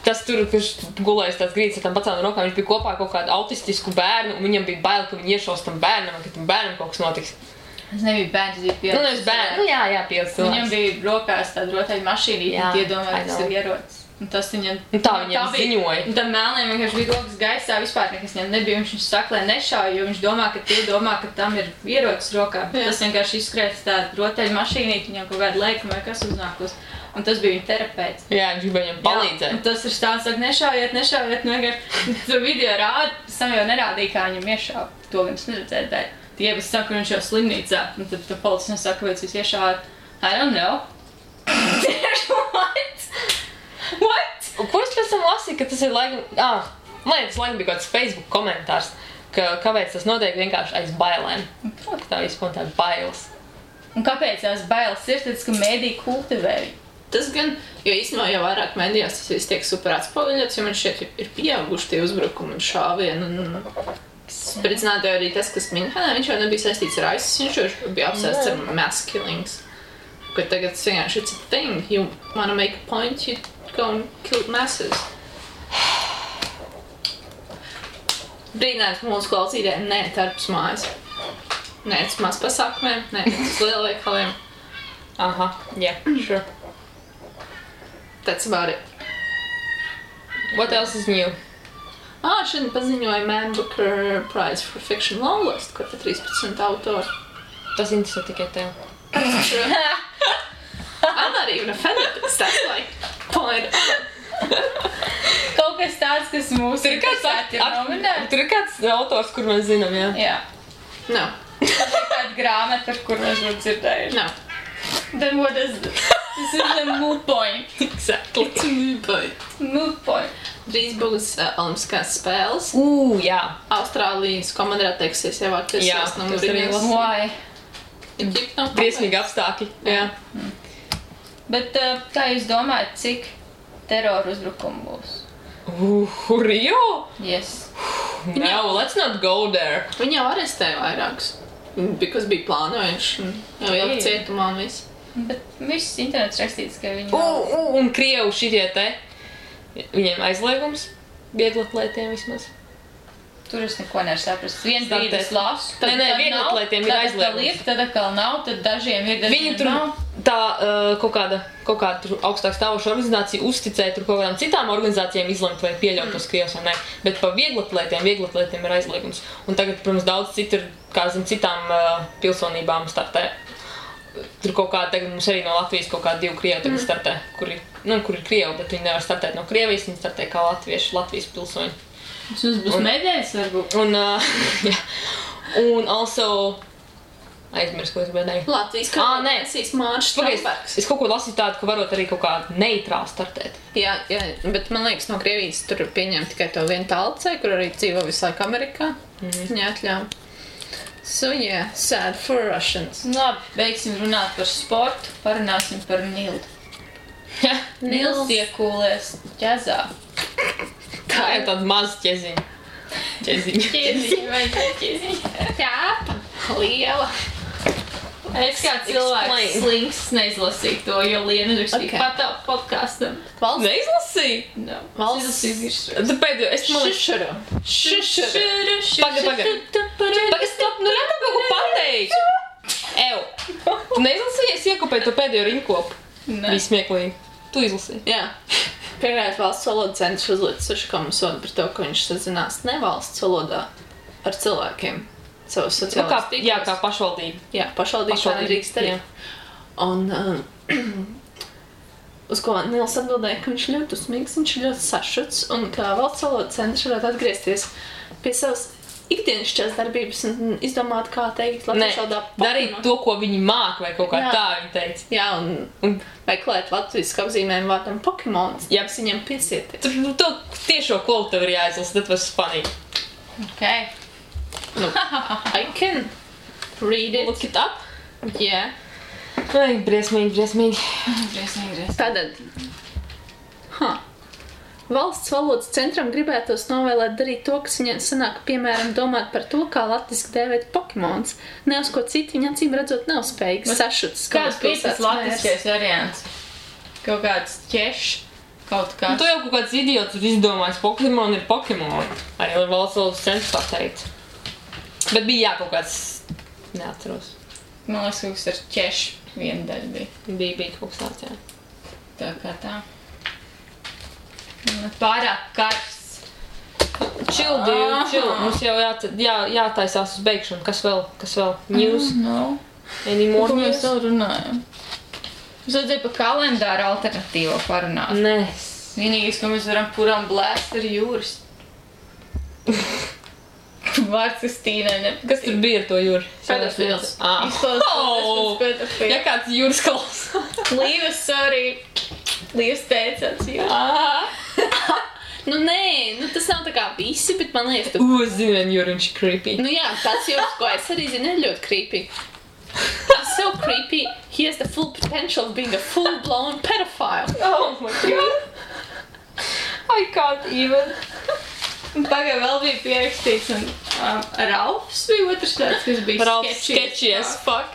[SPEAKER 3] tas tur, kurš gulējas tās grīdas ar tām paceltām rokām, viņš bija kopā ar kaut kādu autistisku bērnu, un viņam bija bail, ka viņi iešaus tam bērnam, un ka tam bērnam kaut kas notiks.
[SPEAKER 2] Tas nebija bērns, tas bija pieaugušs.
[SPEAKER 3] Nu, nevis bērnu. Nu, jā, pieaugušs cilvēks.
[SPEAKER 2] Viņam bija rokās tāda rotaļa mašīnīte,
[SPEAKER 3] Jā,
[SPEAKER 2] un tie domāja,
[SPEAKER 3] I
[SPEAKER 2] ka tas
[SPEAKER 3] know.
[SPEAKER 2] ir ierocis. Un tas viņam...
[SPEAKER 3] Un tā viņam ziņoja.
[SPEAKER 2] Un tam melniem vienkārši bija rokas gaisā, vispār nekas viņam nebija. Viņš saka, lai nešauj, jo viņš domā, ka tie domā, ka tam ir ierocis rokā.
[SPEAKER 1] Jā.
[SPEAKER 2] Tas vienkārši izskrēs tāda rotaļa mašīnīte, viņam kaut kāda lēkuma vai kas uznākus. Un tas bija viņa terapeits.
[SPEAKER 3] Jā, viņš gribēja viņam palīdzēt.
[SPEAKER 2] Un tas ir stāsts, saka, nešaujiet, nu vienkārši tur video rāda, pēc tam jau nerādīja, kā viņam iešāva. To gan es neredzēju, bet tie visi saka, ka viņš jau slimnīcā. Un tad policis saka, kāpēc jūs iešāvāt? I don't know. What?
[SPEAKER 3] Un ko es pēc tam lasīju, ka tas ir laikam... Man liekas, laikam bija kāds Facebook komentārs, ka kāpēc tas notiek vienkārši aiz bailēm. Ka tā vispār tā bailes.
[SPEAKER 2] Un kāpēc tās bailes ir? Tāpēc, ka mēdī kultivē viņu.
[SPEAKER 1] Tas gan, jo īstenībā jau vairāk medijās tas viss tiek super atspoguļots, jo man šeit ir pieauguši tie uzbrukumi un šāvieni. Spridzināti arī tas, kas Minhenē, viņš jau nebija saistīts ar ISIS, viņš jau bija apsēsts ar mass killings. Ka tagad tas vienkārši it's a thing. You wanna make a point, you go and kill masses. Brīdinājums mūsu klausītājiem, nē, tarpus mājas. Nē, uz maz pasākumiem, nē, uz lielveikaliem.
[SPEAKER 3] Aha, yeah, sure.
[SPEAKER 1] That's about it.
[SPEAKER 3] What else is new?
[SPEAKER 1] Šodien paziņoja Man Booker Prize for Fiction Longlist, kur te 13 autori.
[SPEAKER 3] Tas interesē tikai tev.
[SPEAKER 1] I'm not even offended, because that's like point out.
[SPEAKER 2] Kaut kas tāds, kas mūsu ir nominēts.
[SPEAKER 3] Tur ir kāds autors, kur mēs zinām, jā?
[SPEAKER 2] Jā.
[SPEAKER 1] No,
[SPEAKER 2] Tā ir kāda grāmata, ar kur mēs būtu dzirdējuši.
[SPEAKER 1] no.
[SPEAKER 2] Then what is this? This is a moot point.
[SPEAKER 3] Exactly.
[SPEAKER 1] It's a mood point.
[SPEAKER 2] Moot point.
[SPEAKER 1] Drīz būs Olimpiskās spēles.
[SPEAKER 3] Jā.
[SPEAKER 1] Austrālijas komanda atteiksies jau
[SPEAKER 3] Jā,
[SPEAKER 1] attiecās no
[SPEAKER 3] tas arī
[SPEAKER 1] Mūriņas.
[SPEAKER 2] Why?
[SPEAKER 3] Briesmīgi apstākļi. Jā.
[SPEAKER 2] Bet kā jūs domājat, cik teroru uzbrukumu būs?
[SPEAKER 3] Rio?
[SPEAKER 2] Yes.
[SPEAKER 3] No, let's not go there.
[SPEAKER 1] Viņi jau arestēja vairākus. Because bija plānojuši un jau ielikt cietumā un viss.
[SPEAKER 2] Bet viss internets rakstīts, ka viņi...
[SPEAKER 3] Un Krievu šitie te, viņiem aizliegums, vieglatlētiem vismaz.
[SPEAKER 2] Tur es neko nevaru saprast. Vienu brīdi es lasu,
[SPEAKER 3] Nē, vieglatlētiem ir aizliegums.
[SPEAKER 2] Tad atkal nav, tad dažiem ir,
[SPEAKER 3] Viņi
[SPEAKER 2] dažiem
[SPEAKER 3] tur
[SPEAKER 2] nav.
[SPEAKER 3] tā kaut kāda tur augstāk stāvoša organizācija uzticēja tur kaut kādām citām organizācijām izlemt vai pieļaut tos Krievus vai ne. Bet pa vieglatlētiem ir aizliegums. Un tagad, protams, daudz citu ir, kā zin, citām pilsonībām startē. Tur kaut kā tagad mums arī no Latvijas kaut kā 2 Krievi tagad startē, kuri kur ir Krievi, bet viņi nevar startēt no Krievijas, viņi startē kā Latvijas pilsoņi.
[SPEAKER 2] Tas būs medaļas, varbūt.
[SPEAKER 3] Jā. Un also... Aizmirst, ko es gribēju.
[SPEAKER 1] Latvijas kalpēsīs Mārš Strombergs.
[SPEAKER 3] Es kaut ko lasīju tādu, ka varot arī kaut kā neitrāli startēt.
[SPEAKER 1] Jā, bet man liekas, no Krievijas tur pieņem tikai to vienu talcei, kur arī dzīvo visu laiku Amerikā. Viņa atļauj. So, yeah, sad for Russians.
[SPEAKER 2] Labi, beigsim runāt par sportu, parunāsim par Nildu. Nils iekūlies ķezā.
[SPEAKER 3] Tā ir tāda maza ķeziņa.
[SPEAKER 2] Ķeziņa.
[SPEAKER 1] Kāpa, liela.
[SPEAKER 2] Es kā cilvēks slinks neizlasīju to, jo Liena rakstīja patā podkastam.
[SPEAKER 3] Neizlasīju?
[SPEAKER 2] No.
[SPEAKER 3] Tu pēdējo, es
[SPEAKER 1] Šušuru.
[SPEAKER 3] Pagaid, stop, nu nekā kaut ko pateikt. Tu neizlasīji, es iekopēju to pēdējo rinkopu.
[SPEAKER 2] Ne.
[SPEAKER 3] Bija smieklīgi. Tu izlasīji.
[SPEAKER 1] Jā. Pirmais valsts valoda centrs uzliek 6 sodu par to, ka viņš sazinās nevalsts valodā ar cilvēkiem. Savus sociālās tīklos.
[SPEAKER 3] Jā, kā pašvaldība.
[SPEAKER 1] Jā, pašvaldība tā nedrīkst darīt. Un uz ko Nils atbildēja, ka viņš ļoti uzmīgs, viņš ļoti sašuts, un kā valsts valoda centrs varētu atgriezties pie savas ikdienišķās darbības un izdomāt, kā teikt latviešu valodā
[SPEAKER 3] darīt to, ko viņi māk, vai kaut kā tā viņi teica.
[SPEAKER 1] Jā, un meklēt latviešu apzīmējumu vārdam Pokemons, ja viņam piesieties.
[SPEAKER 3] To tiešo kolu tev ir jāizlasa, that was funny.
[SPEAKER 2] Okay.
[SPEAKER 1] Nu, I can read it.
[SPEAKER 3] Look it up.
[SPEAKER 1] Yeah.
[SPEAKER 3] Ai, briesmīgi.
[SPEAKER 1] Tātad. Valsts valodas centram gribētos novēlēt darīt to, kas viņiem sanāk, piemēram, domāt par to, kā latviski dēvēt Pokemons. Ne uz ko citu viņa acīm redzot nav spējīgs sašuts.
[SPEAKER 2] Kāds bija tas latviskais variants? Kaut kāds ķešs, kaut kāds.
[SPEAKER 3] Tu jau kaut kāds idiots ir izdomājis, Pokemon ir Pokemon. Arī valsts valodas centrs tā teica. Bet bija jā, kaut kāds, neatceros.
[SPEAKER 2] Man liekas, kaut kas ar ķešu viena daļa bija.
[SPEAKER 3] Bija kaut kas tāds, jā.
[SPEAKER 2] Tā kā tā. Pārāk karsts.
[SPEAKER 3] Chill, dude, chill. Mums jau jātaisās uz beigšanu. Kas vēl? News?
[SPEAKER 2] No.
[SPEAKER 3] Any more
[SPEAKER 2] Ko
[SPEAKER 3] news?
[SPEAKER 2] mēs vēl runājam? Mums vajadzēja par kalendāru alternatīvo parunāt.
[SPEAKER 3] Nē.
[SPEAKER 2] Vienīgais, ko mēs varam puram blēst, ir jūras. Vārds Kristīnai nepatīk.
[SPEAKER 3] Kas tur bija ar to jūru?
[SPEAKER 1] Pedofils.
[SPEAKER 2] Izklausās
[SPEAKER 3] Ja kāds jūras klausās.
[SPEAKER 2] Līvas, sorry. Līvas teicās jūras.
[SPEAKER 1] Nu nē, tas nav tā kā visi, bet man liekas,
[SPEAKER 3] Es zinu, vien jūra viņš creepy.
[SPEAKER 1] Nu jā, tas jūras, ko es arī zinu, ir ļoti creepy. He's so creepy, he has the full potential of being a full-blown pedophile.
[SPEAKER 3] Oh my god. I can't even.
[SPEAKER 2] Pagāj vēl bija pierakstīts, un Ralfs bija otrs tāds, kas bija
[SPEAKER 3] sketchy as fuck.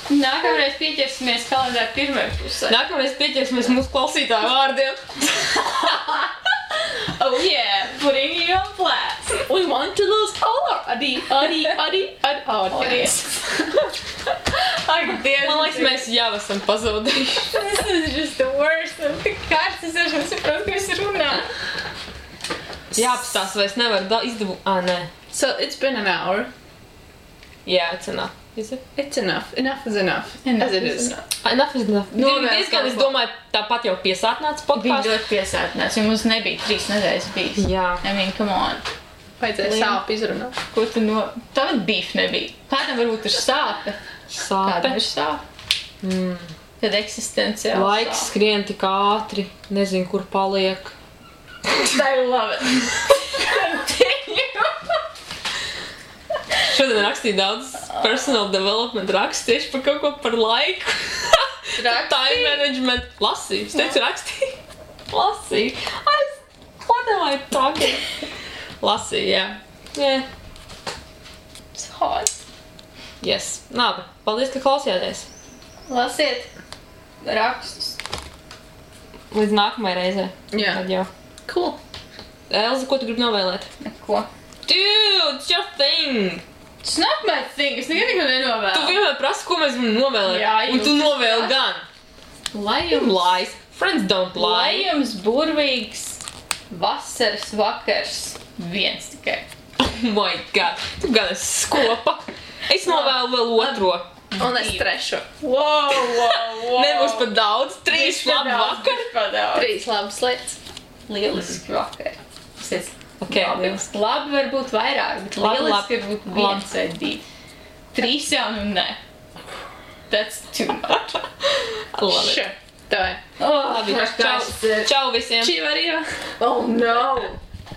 [SPEAKER 2] Nākamreiz pieķersimies kalendāru pirmajā pusē.
[SPEAKER 3] Nākamreiz pieķersimies mūsu klausītāju vārdiem.
[SPEAKER 2] Oh yeah, putting you on blast.
[SPEAKER 1] We want to lose color. Adi.
[SPEAKER 2] Ak, Dievs.
[SPEAKER 3] Man liekas, mēs jau esam pazaudējuši.
[SPEAKER 2] This is just the worst. Un tik kārts, es arī saprotu, ko es runā.
[SPEAKER 3] Jāapstās, vai es nevaru izdabūt. Nē.
[SPEAKER 1] So it's been an hour.
[SPEAKER 3] Yeah, it's enough. Is it?
[SPEAKER 1] It's enough. Enough is enough.
[SPEAKER 2] Enough
[SPEAKER 1] as it
[SPEAKER 2] is
[SPEAKER 1] is.
[SPEAKER 2] enough.
[SPEAKER 3] Enough is enough.
[SPEAKER 2] Novēl
[SPEAKER 3] Diezgan, es
[SPEAKER 2] kaut ko.
[SPEAKER 3] domāju, tāpat jau piesātināts
[SPEAKER 2] Bija
[SPEAKER 3] podcasts.
[SPEAKER 2] ļoti piesātināts, jo mums nebija 3 nedēļas bijis.
[SPEAKER 3] Jā.
[SPEAKER 2] I mean, come on.
[SPEAKER 1] Vajadzēja
[SPEAKER 2] Liam.
[SPEAKER 1] sāpi izrunāt.
[SPEAKER 2] Ko tu no... Tāda beef nebija. Kādam varbūt ir sāpe. Kādam
[SPEAKER 3] Sāpe.
[SPEAKER 2] ir sāpe. Kad eksistenciāli
[SPEAKER 3] Laiks skrien tik ātri. Nezinu, kur paliek.
[SPEAKER 2] I love it.
[SPEAKER 3] Šodien rakstīju daudz personal development rakstu tieši par kaut ko par laiku. Time management. Lasīju. Es teicu rakstīju. Lasīju. What am I talking? Lasīju, jā. Yeah.
[SPEAKER 2] It's hot.
[SPEAKER 3] Yes. Labi. Paldies, ka klausījāties.
[SPEAKER 2] Lasiet rakstus.
[SPEAKER 3] Līdz nākamajai reizē.
[SPEAKER 1] Jā.
[SPEAKER 3] Tad jau.
[SPEAKER 1] Cool.
[SPEAKER 3] Elza, ko tu gribi novēlēt?
[SPEAKER 2] Neko.
[SPEAKER 3] Dude, it's your thing!
[SPEAKER 2] It's not my thing. Es nekad neko nenovēlu.
[SPEAKER 3] Tu vienmēr prasi, ko mēs varam novēlēt.
[SPEAKER 2] Jā,
[SPEAKER 3] un tu
[SPEAKER 2] jūs
[SPEAKER 3] novēli
[SPEAKER 2] esat.
[SPEAKER 3] gan.
[SPEAKER 2] Lai
[SPEAKER 3] You
[SPEAKER 2] jums,
[SPEAKER 3] lies. Friends don't
[SPEAKER 2] lai
[SPEAKER 3] lie.
[SPEAKER 2] jums burvīgs vasaras vakars. Viens tikai.
[SPEAKER 3] Oh my god. Tu gan esi skopa. Es novēlu vēl otro.
[SPEAKER 1] Un es trešu.
[SPEAKER 2] Wow.
[SPEAKER 3] Nebūs pat daudz, 3 labi vakar.
[SPEAKER 1] 3 labas lietas.
[SPEAKER 2] Lieliski vakar.
[SPEAKER 3] Ok, lieliski.
[SPEAKER 2] Labi var būt vairāk, bet lieliski var būt 1 vai 2. 3 jau nu ne. That's too much.
[SPEAKER 3] Labi.
[SPEAKER 1] Sure. Tā ir.
[SPEAKER 2] Labi,
[SPEAKER 3] Čau visiem.
[SPEAKER 1] Čī var jau.
[SPEAKER 2] Oh no!